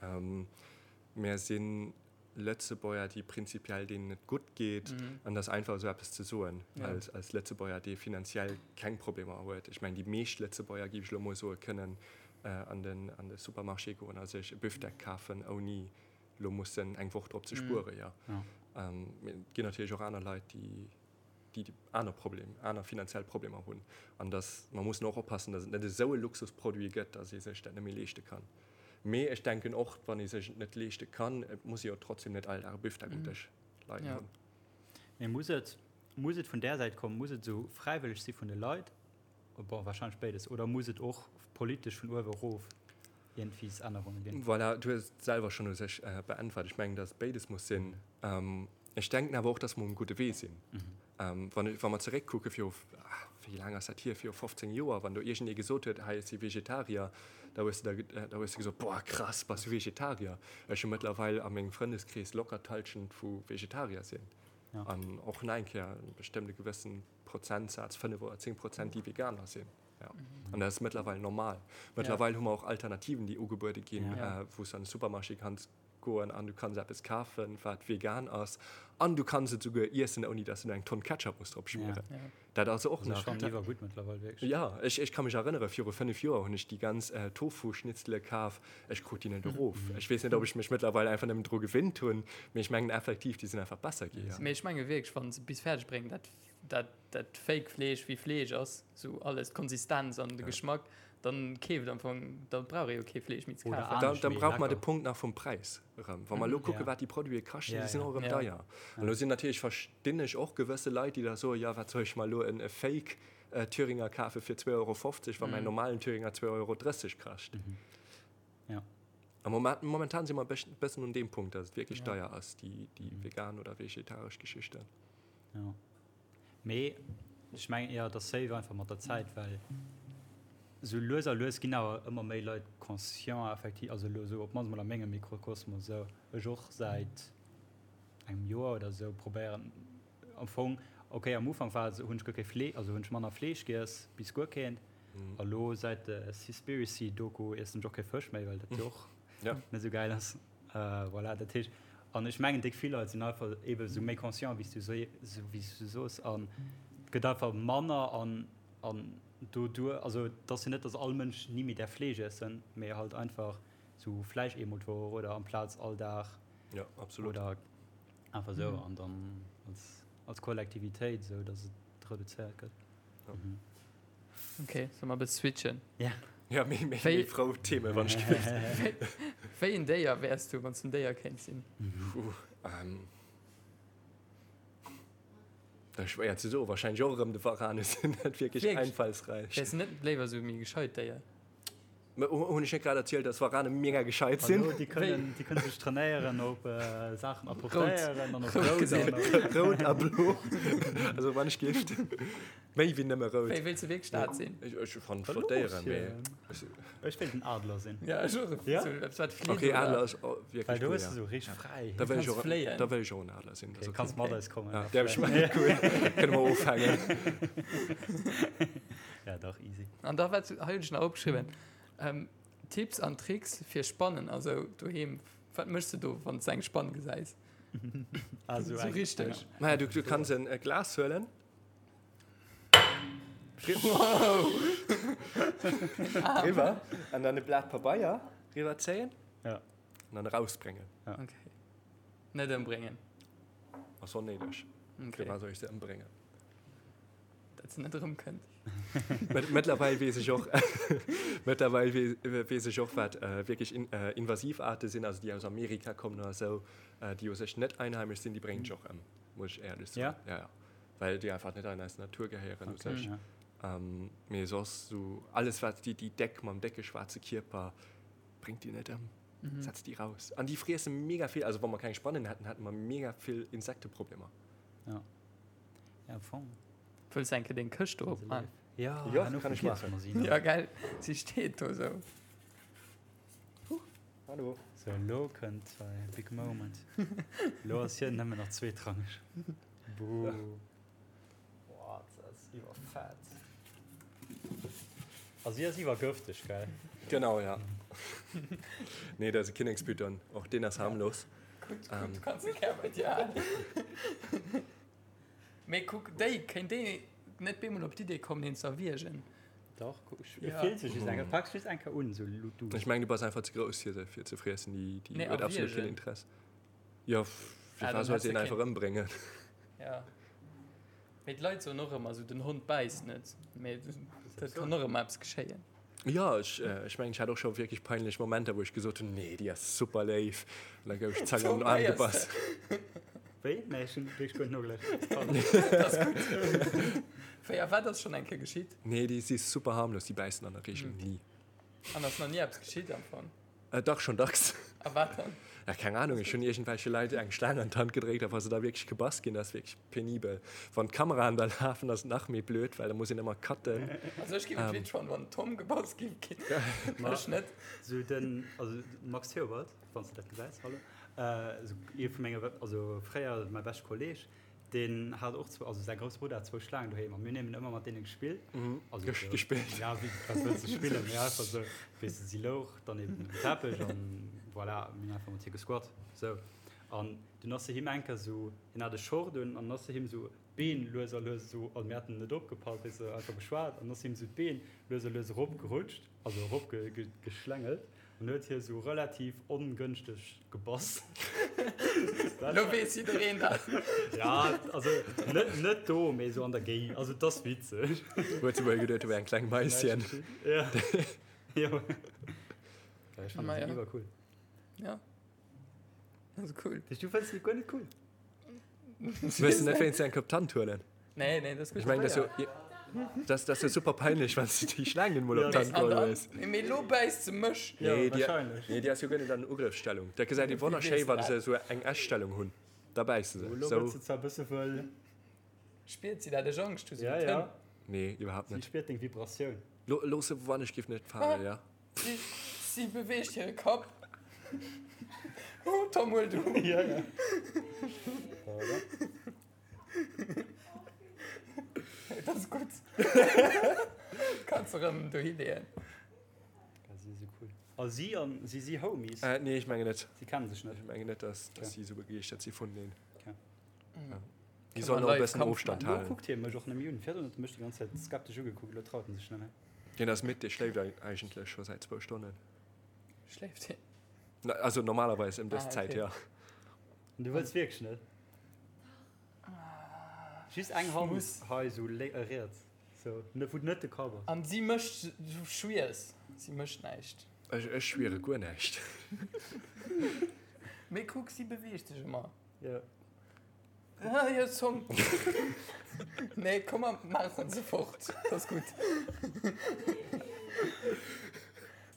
mär sinn Lëtzebuerger, déi prinzipiell deenen et gutt geet, an et ass einfach esou eppes ze soen als, als Lëtzebuerger, dee finanziell keng Problemer huet. Ech mengen, déi meescht Lëtzebuerger, géif ech elo mol soen, kënnen an den, an de Supermarché goen a sech e Büfdeck kafen, ouni elo mussen eng Woch drop ze spueren, jo. Mee et ginn natierlech och aner Leit, déi, déi aner Problem, aner finanziell Problemer hunn. An dass, mer mussen och oppassen, dass et net esou e Luxusproduit gëtt, dass ee sech dat net méi leeschte kann. Mee ech denken och, wann ee sech et net leeschte kann, et muss ee jo trotzdem net all Dag e Büfdeck um Dësch leien hunn. Mee muss et, muss et vun där Säit kommen? Muss et esou fräiwëlleg si vun de Leit? Bon, wahrscheinlech béides. Oder muss et och politesch vun uewe erof iergendwies Ännerunge ginn? Voilà, du hues et selwer schonn u sech beäntwert. Ech mengen, dass et béides muss sinn. Ech denken awer och, dass mer um gudde Wee sinn. Wann, wa mer zeréckkucke viru, wéi laang ass dat hier, viru 15 Joer, wann do iergendee gesot huet, hei, ech si Vegetarier, da hues de da, da hues de gesot, Boah, krass, bass du Vegetarier? Ech hu mëttlerweil a mengem Frëndeskrees locker d'Hallschent vu Vegetarier sinn. An och nach eng Kéier bestëmmt e gewëssen Prozentsaz, 5 oder 10 Prozent, déi Veganer sinn. Ja. An dat ass mëttlerweil normal. Mëttlerweil hu mer och Alternativen, déi ugebuede ginn, wou s du an de Supermarché kanns goen an du kanns eppes kafen, wat vegan ass an du kanns et souguer iessen, ouni dass du eng Tonn Ketchup muss drop schmieren. Ja. Dat ass och nach. Dat ass gutt mëttlerweil, wierklech. Ja, ech, ech ka mech erënnere, viru 5 Joer hunn ech déi ganz äh, Tofu-Schnitzele kaf. Ech krut déi net erof. Ech weess net, ob ech mech mëttlerweil einfach nëmmen dru gewinnt hunn, mee ech mengen effektiv, déi sinn einfach besser gi. Ja. Mee ech menge wierklech, wann se bis fäerdeg bréngen, dat dat dat Fake Fleesch wéi Fleesch ass, sou alles, d'Konsistenz an de Geschmack, dann keeft am Fong, da brauch ee jo kee Fleesch méi ze kafen. Dann, dann brauch mer de Punkt nach vum Präis erëm. Wa mer elo kucke wat déi Produite kaschten, déi sinn och erëm deier. An elo sinn natierlech, verstinn ech och gewësse Leit, déi da soen, jo wat soll ech mer elo en Fake Thüringer kafe fir 2,50 Euro, wa mäin normalen Thüringer 2,30 Euro kascht. A momentan si mer e bëssen un deem Punkt, datt et wierklech deier ass, déi vegan oder vegetaresch Geschichten. Jo. Mee ech mengen eher, et ass safe einfach mat der Zäit, well esou lues a lues ginn awer ëmmer méi Leit conscient effektiv, also elo esou op d'mannst mol a mengem Mikrokosmos esou, ech och säit engem Joer oder esou probéieren am Fong, okay am Ufank war et esou, hunn ech guer kee Flee, also hunn ech manner Fleesch giess, bis guer keent, a lo säit der Seaspiracy Doku iessen ech och kee Fësch méi, well dat jo och net esou gäil ass. Voilà, dat heescht, an ech mengen, déck vill Leit sinn einfach eebe sou méi conscient, wéi s du wéi s du soos, an et gëtt einfach manner an an doduer, also et ass jo net, datt all Mënsch ni méi däerf Fleesch iessen, mee halt einfach sou vläicht eemol d'Woch oder amplaz all Dag. Jo, absolut. Oder einfach sou an dann als als Kollektivitéit esou, datt et reduzéiert gëtt. Ok, solle mer e bësse switchen? Ja. Ja, méi, méi, méi frou Themen, wann ech gewinnt. Wéi en Déier wäers du, wann s du en Déier kéints sinn? Puh, ähm, dat ass schwéier ze soen. Wahrscheinlech och erëm de Varan. Ech sinn net wierklech einfallsräich. Wäers du net léiwer esou e méi gescheit Déier? Hunn ech net grad erzielt, dass Warane mega gescheit sinn? Hallo, déi kënnen, déi kënnen sech trainéieren op Saachen apportéieren an op Rout an op. Rout a Blo. Also wann ech géif méi wéi nëmme rout. Wéi wéilst du wierklech dat sinn? Ech, ech fannen flott Déieren, mee ech. Ech wéilt en Adler sinn. Ja, ech och. Ja? Sou eppes wat flitt, Okay, oder? Adler ass wierklech Well do cool, hues ja. du sou richteg Fräiheet. Da wëll ech Kanns och, fléien. da wëll ech och en Adler sinn. Okay, kanns mat eis kommen. Ja, däerf ech mat? Cool. Kënne mer ofhängen. Ja, dach, easy. An da wat hei hunn ech nach opgeschriwwen, Tipps an Tricks fir Spannen, also doheem, wat méchs de do wann s de eng Spann gesäis? Also Sou richteg. Maja, du, du kanns en Glas huelen. Wow! Riwwer an dann e Blat Pabeier riwwer zéien. Ja. An dann erausbréngen. Ja. Okay. Net ëmbréngen. Ass onnéideg. Okay. Firwat soll ech se ëmbréngen? Dat se net erëmkënnt. Mëttlerweil weess ech och, mëttlerweil weess ech och, wat wierklech invasiv Aarte sinn, also déi aus Amerika kommen oder esou, déi u sech net einheimesch sinn, déi bréngen ech och ëm, muss ech éierlech soen. Ja? Ja, ja. Well déi einfach net an eis Natur gehéieren u sech. Ja. Mee soss esou alles, wat déi, déi déck mam décke schwaarze Kierper, bréngt déi net ëm. Setzt déi raus. An déi friesse mega vill, also wa mer keng Spannen hätten, hätte mer mega vill Insekteproblemer. Ja. Ja, am Fong. Wëlls eng Kéier deng Këscht do opman? Ja, Ja, herno kann ech vergiesse maachen. mer si nach. Ja, gell, si steet do sou. Huch, hallo. So, elo kënnt säi big moment. Elo ass hien nëmmen nach zweetrangeg. Buh. Boah, dat ass iwwerfett. A si ass iwwergëfteg, gell? Genau, ja. Nee, dat ass e Kinnekspython. Och deen ass harmlos. Gutt, gutt, du kanns e gär bei dir halen. Mee kuck, déi, kéint déi net bemol op d'Idee kommen, een ze erwiergen? Dach, kuck, ech Ja. fillt sech just eng, pak just eng Kéier un, sou du. Ech mengen, du bass einfach ze grouss, fir se fir ze friessen. Déi, déi Nee, huet absolut keen erwiergen. Interesse. Jo, fir Ah, wat dann soll hätt se se een einfach keen. ëmbréngen? Ja. Mee d'Leit soen och ëmmer esou, den Hond bäisst net. Mee dat kann och ëmmer eppes geschéien. Jo, ech, ech mengen, ech hat och scho wierklech peinlech Momenter, wou ech gesot hunn, nee, déi ass super léif. An da gouf ech zack an den Aarm gebass. Wéi? Nee, ech hunn wierklech guer net nogelauschtert. Pardon. Dat ass gutt. Wéi a wat ass schonn eng Kéier geschitt? Nee, déi si super harmlos, déi bäissen an der Reegel ni. An ass nach ni eppes geschitt am Fong? Äh, dach, schon dacks. A wat dann? Ja, keng Ahnung, ech hunn iergendwelche Leit eng Schlaang an d'Hand gedréckt, a wa se da wierklech gebass ginn, dat ass wierklech penibel. Wann d'Kameraen da lafen, ass et nach méi blöd, well da muss een ëmmer cutten. Also ech géif et witzeg fannen, wann den Tom gebass géif ginn. Ech net. Sou den, also Max Theobald, wann s de dat gesäis, hallo, sou ee vu menge, also fréier mäi beschte Kolleg, Deen hat och zwou, also säi grousse Brudder hat zwou Schlaangen doheem a mir hunn eben ëmmer mat deene gespillt. Also Ges- gespillt. Ja, wéi, wat wëlls de spillen? Mee einfach sou, weess de, si louch dann eben um Teppech an voilà, mir hunn einfach mat hir gesquat, sou. An dunn ass se him eng Kéier sou, hien hat e Short un an ass se him sou d'Been lues a lues sou, also mir haten net opgepasst, weess de, einfach geschwat an ass him sou d'Been lues a lues eropgerutscht, also erop ge, ge, geschlängelt. An huet hie sou relativ ongënschteg gebass. Lo weess jiddereen dat. Ja, also net, net do, mee sou an der Géigend. Also et ass witzeg. Huet se wuel geduet, du wär eng kleng Maisschen. Ja. Jo. Ja, ech fannen Maja. se iwwer cool. Ja. Also cool. Du fënns déi guer net cool? Wëlls de net wéinst eng Kop d'Hand huelen? Nee, nee, dat ass gutt. Ech mengen, dat ass jo, dat ass jo super peinlech, wann s de déi Schlaang net mol op d'Hand geholl hues. Mee lo bäisst se mech. Ja, Nee, déi, wahrscheinlech. nee, déi ass jo guer net an Ugrëffsstellung. Dat gesäit ee wonnerschéi, wann se esou eng Essstellung hunn. Da bäisse se. Lo Sou. gëtt se zwar e bësse wëll. Spiert si dat? Ech Angscht hu se Ja, mit ja. Hënn. Nee, iwwerhaapt Si net. spiert deng Vibratioun. Lo, looss se, wann ech giff net falen, ja. Si, si beweegt hire Kapp. Oh, Tom, huel du. Ja, ja. Voilà. Dat ass gutt. Kanns de rëm dohi leeën. Ja, si si cool. A si an si si Homies? Äh, nee, ech mengen net. Si kennen sech net. Ech mengen net, dass, dass Okay. si esou begeeschtert si vuneneen. Okay. Ja. Déi sollen och e bëssen Ofstand Lo halen. kuckt hie mech och nëmme un. Virdrun huet e mech déi ganz Zäit skeptesch ugekuckt, elo traut en sech net méi. Deen ass midd, dee schléift eigentlech scho säit zwou Stonnen. Schléift hien? Na, also normalerweis ëm dës Ah, Zäit, okay. ja. An du wëlls wierklech net? Just eng Hand Muss. hei sou lé äh, riets. Sou, ne, wou net de Kapp ass. An si mécht, du schwiers, si mécht näischt. Ech, ech schwiere guer näischt. Mee kuck, si beweegt sech ëmmer. Ja. Ah, hir Zong. Nee, komm mer maachen se fort. Dat ass gutt.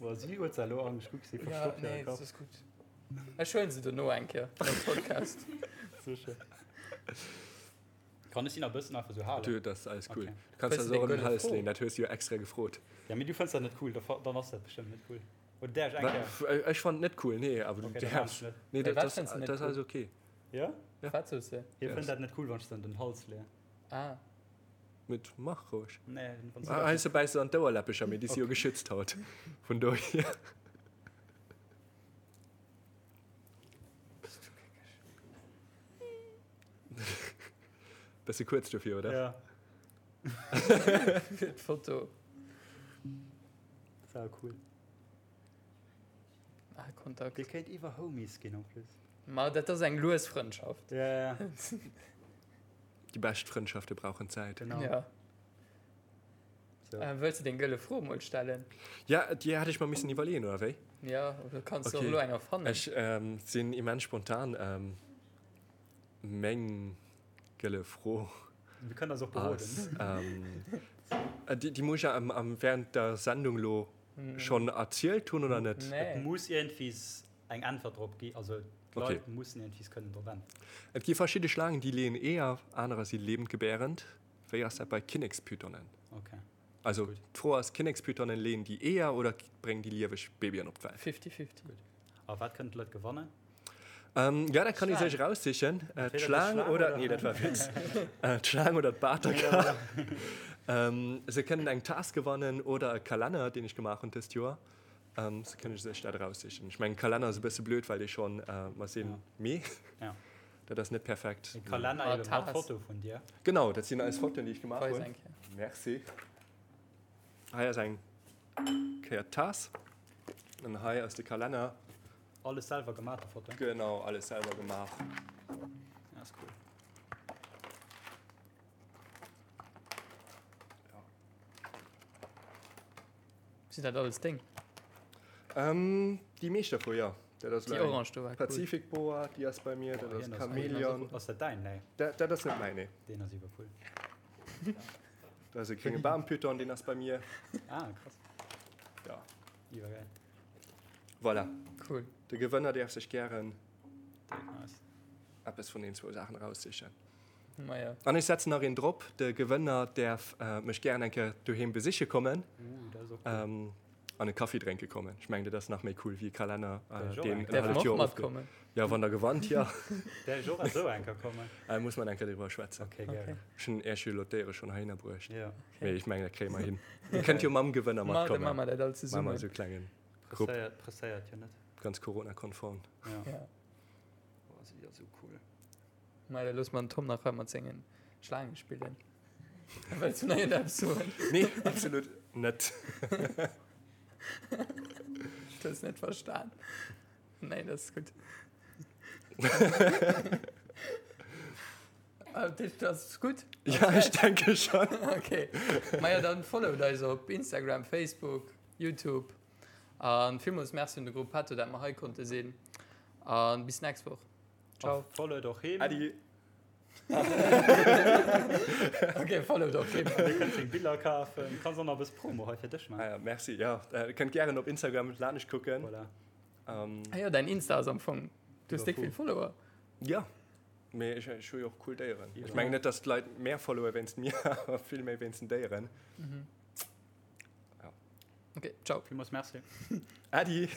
Boah, si huet se elo Angscht, kuck, si Ja, verstoppt hire nee, Kapp. dat ass gutt. Ech huelen se dono eng Kéier am Podcast. Sécher. Kann ech si nach e bëssen einfach sou halen? Du, dat ass alles cool. Okay. Du kanns Fënns se du och deng ëm den gëlle Hals Fro? leeën, dat hues du jo extra gefrot. Ja, mee du fënns dat net cool, da fa- dann ass dat bestëmmt net cool. Oder däerf ech eng Kéier? Ech fannen et net cool, nee, awer du Okay, dann däerfs. maan ech net. Nee, Mee dat wat ass fënns du net dat ass cool? alles okay. Ja? Ja. Wat soos de? Hie Yes. fënnt dat net cool, wann ech se an den Hals leeën. Ah. Mit mach roueg. Nee, wann se Ah, dat heiansdo bäiss se an d'Ouerläppecher, mee déi si jo geschützt haut. Vun dohier. Bist du geckeg. Bësse kuerz dofir, oder? Ja. Fir d'Foto. Sau cool. Ah, Kontakt. Dir kéint iwwer Homies ginn en plus. Ma dat ass eng lues Frëndschaft. Ja, ja. Déi bescht Frëndschafte brauchen Zäit. Genau. Ja. So. Äh, wëlls du deng gëlle Fro mol stellen? Ja, déi hat ech mer missen iwwerleeën, oder wéi? Ja, oder kanns du Okay. och elo eng erfannen? Ech ähm, sinn immens spontan. Ähm, meng gëlle Fro Wir kënnen eis och beroden. ass, ähm, äh, déi, déi muss ech ja am, am, während der Sendung lo schonn erzielt hunn, oder net? Nee. Et muss iergendwies eng Äntwert drop gi, also d'Leit mussen iergendwies kënnen drop äntweren. Et gi verschidde Schlaangen, déi leeën Eeër, anerer si lebendgebärend. Wéi ass dat bei Kinnekspythonen? Okay. Also d'Fro ass, Kinnekspythonen, leeën déi Eeër oder bréngen déi lieweg Babyen op d'Welt? Fifty-fifty. A wat kënnen d'Leit gewannen? Ja, dat kann ee sech eraussichen. D'Schlaang oder, nee, dat war e Witz. D'Schlaang oder d'Baterka. Se kënnen eng Taass gewannen oder e Kalenner, deen ech gemaach hunn dëst Joer. Se kënne sech dat eraussichen. Ech mengen, Kalenner ass e bësse blöd, well dee schonn, mer sinn Mee, dat ass net perfekt. E Kalenner ebe mat Foto vun dir. Genau, dat sinn eis Fotoen, déi ech gemaach hunn. Merci. Hei ass eng Kéier d'Taass an hei ass de Kalenner. Alles selwer gemaach, déi Foto? Genau, alles selwer gemaach. Ja, ass cool. Sinn dat alles deng? Ähm, déi meescht dervu, jo. Dat ass Déi orange do war cool. Pacific Boa, déi ass bei mir, dat ass Chameleon. Ass dat däin? Nee. Dat, dat ass net mäin, nee. Deen ass iwwer cool. Dat ass e grénge Baampython, deen ass bei mir. Ah, krass. Ja. Iwwergäil. Voilà. Cool. De Gewënner däerf sech gären Nice. eppes vun den zwou Saachen eraussichen. Maja. An ech setzen nach een drop, de Gewënner däerf mech gären eng Kéier doheem besiche kommen Uh, dat ass och cool. an e Kaffi drénke kommen. Ech mengen, dat ass nach méi cool wéi e Kalenner, Däerf ech och deen eng en Kéier? Däerf halleft mer Joer och ofge. matkommen? Jo, wann der gewannt, jo. Däerf ech och esou eng Kéier kommen? Äh, muss mer eng Kéier driwwer schwätzen. Okay, gären. Okay. Ech hunn Iech jo elo d'Déiere schonn heihinner bruecht. Ja. Mee ech mengen, dat kréie mer hin. Dir kënnt jo mam Gewënner Ma, da matkommen. maache mer dat all Maache mer zesummen. esou e klengen Grupp. Presséiert, presséiert jo net. Ganz Corona-konform. Ja. Ja. Oh, si ass esou cool. Ma da loosse mer den Tom nach hei mat sengen Schlaange spillen. Wëlls du nach iergendeppes soen? Nee, absolut net. Du hues net verstan. Nee, dat ass gutt. Dat ass gutt. Ja, ech denke schon. Okay. Maja, dann followt eis op Instagram, Facebook, YouTube. An villmools Merci un de Gruppetto, dat mer hei konnte sinn. An bis nächst Woch. Ciao. A followt och him. Adi. Okay, followt och him. Dir kënnt seng Biller kafen. Kanns och nach e bësse Promo hei fir dech Ah maachen. ja, merci. Ja, äh, kënnt gären op Instagram laanscht kucken. Voilà. Ähm, Ah jo, däin Insta ass am Fong. Du hues déck vill Follower. ja. Mee ech, ech hu jo och cool Déieren. Ja. Ech mengen net, dass d'Leit mär followe wéinst mir, awer vill méi wéinst den Déieren. Mhm. Ja. Okay, ciao. Villmools Merci. Adi.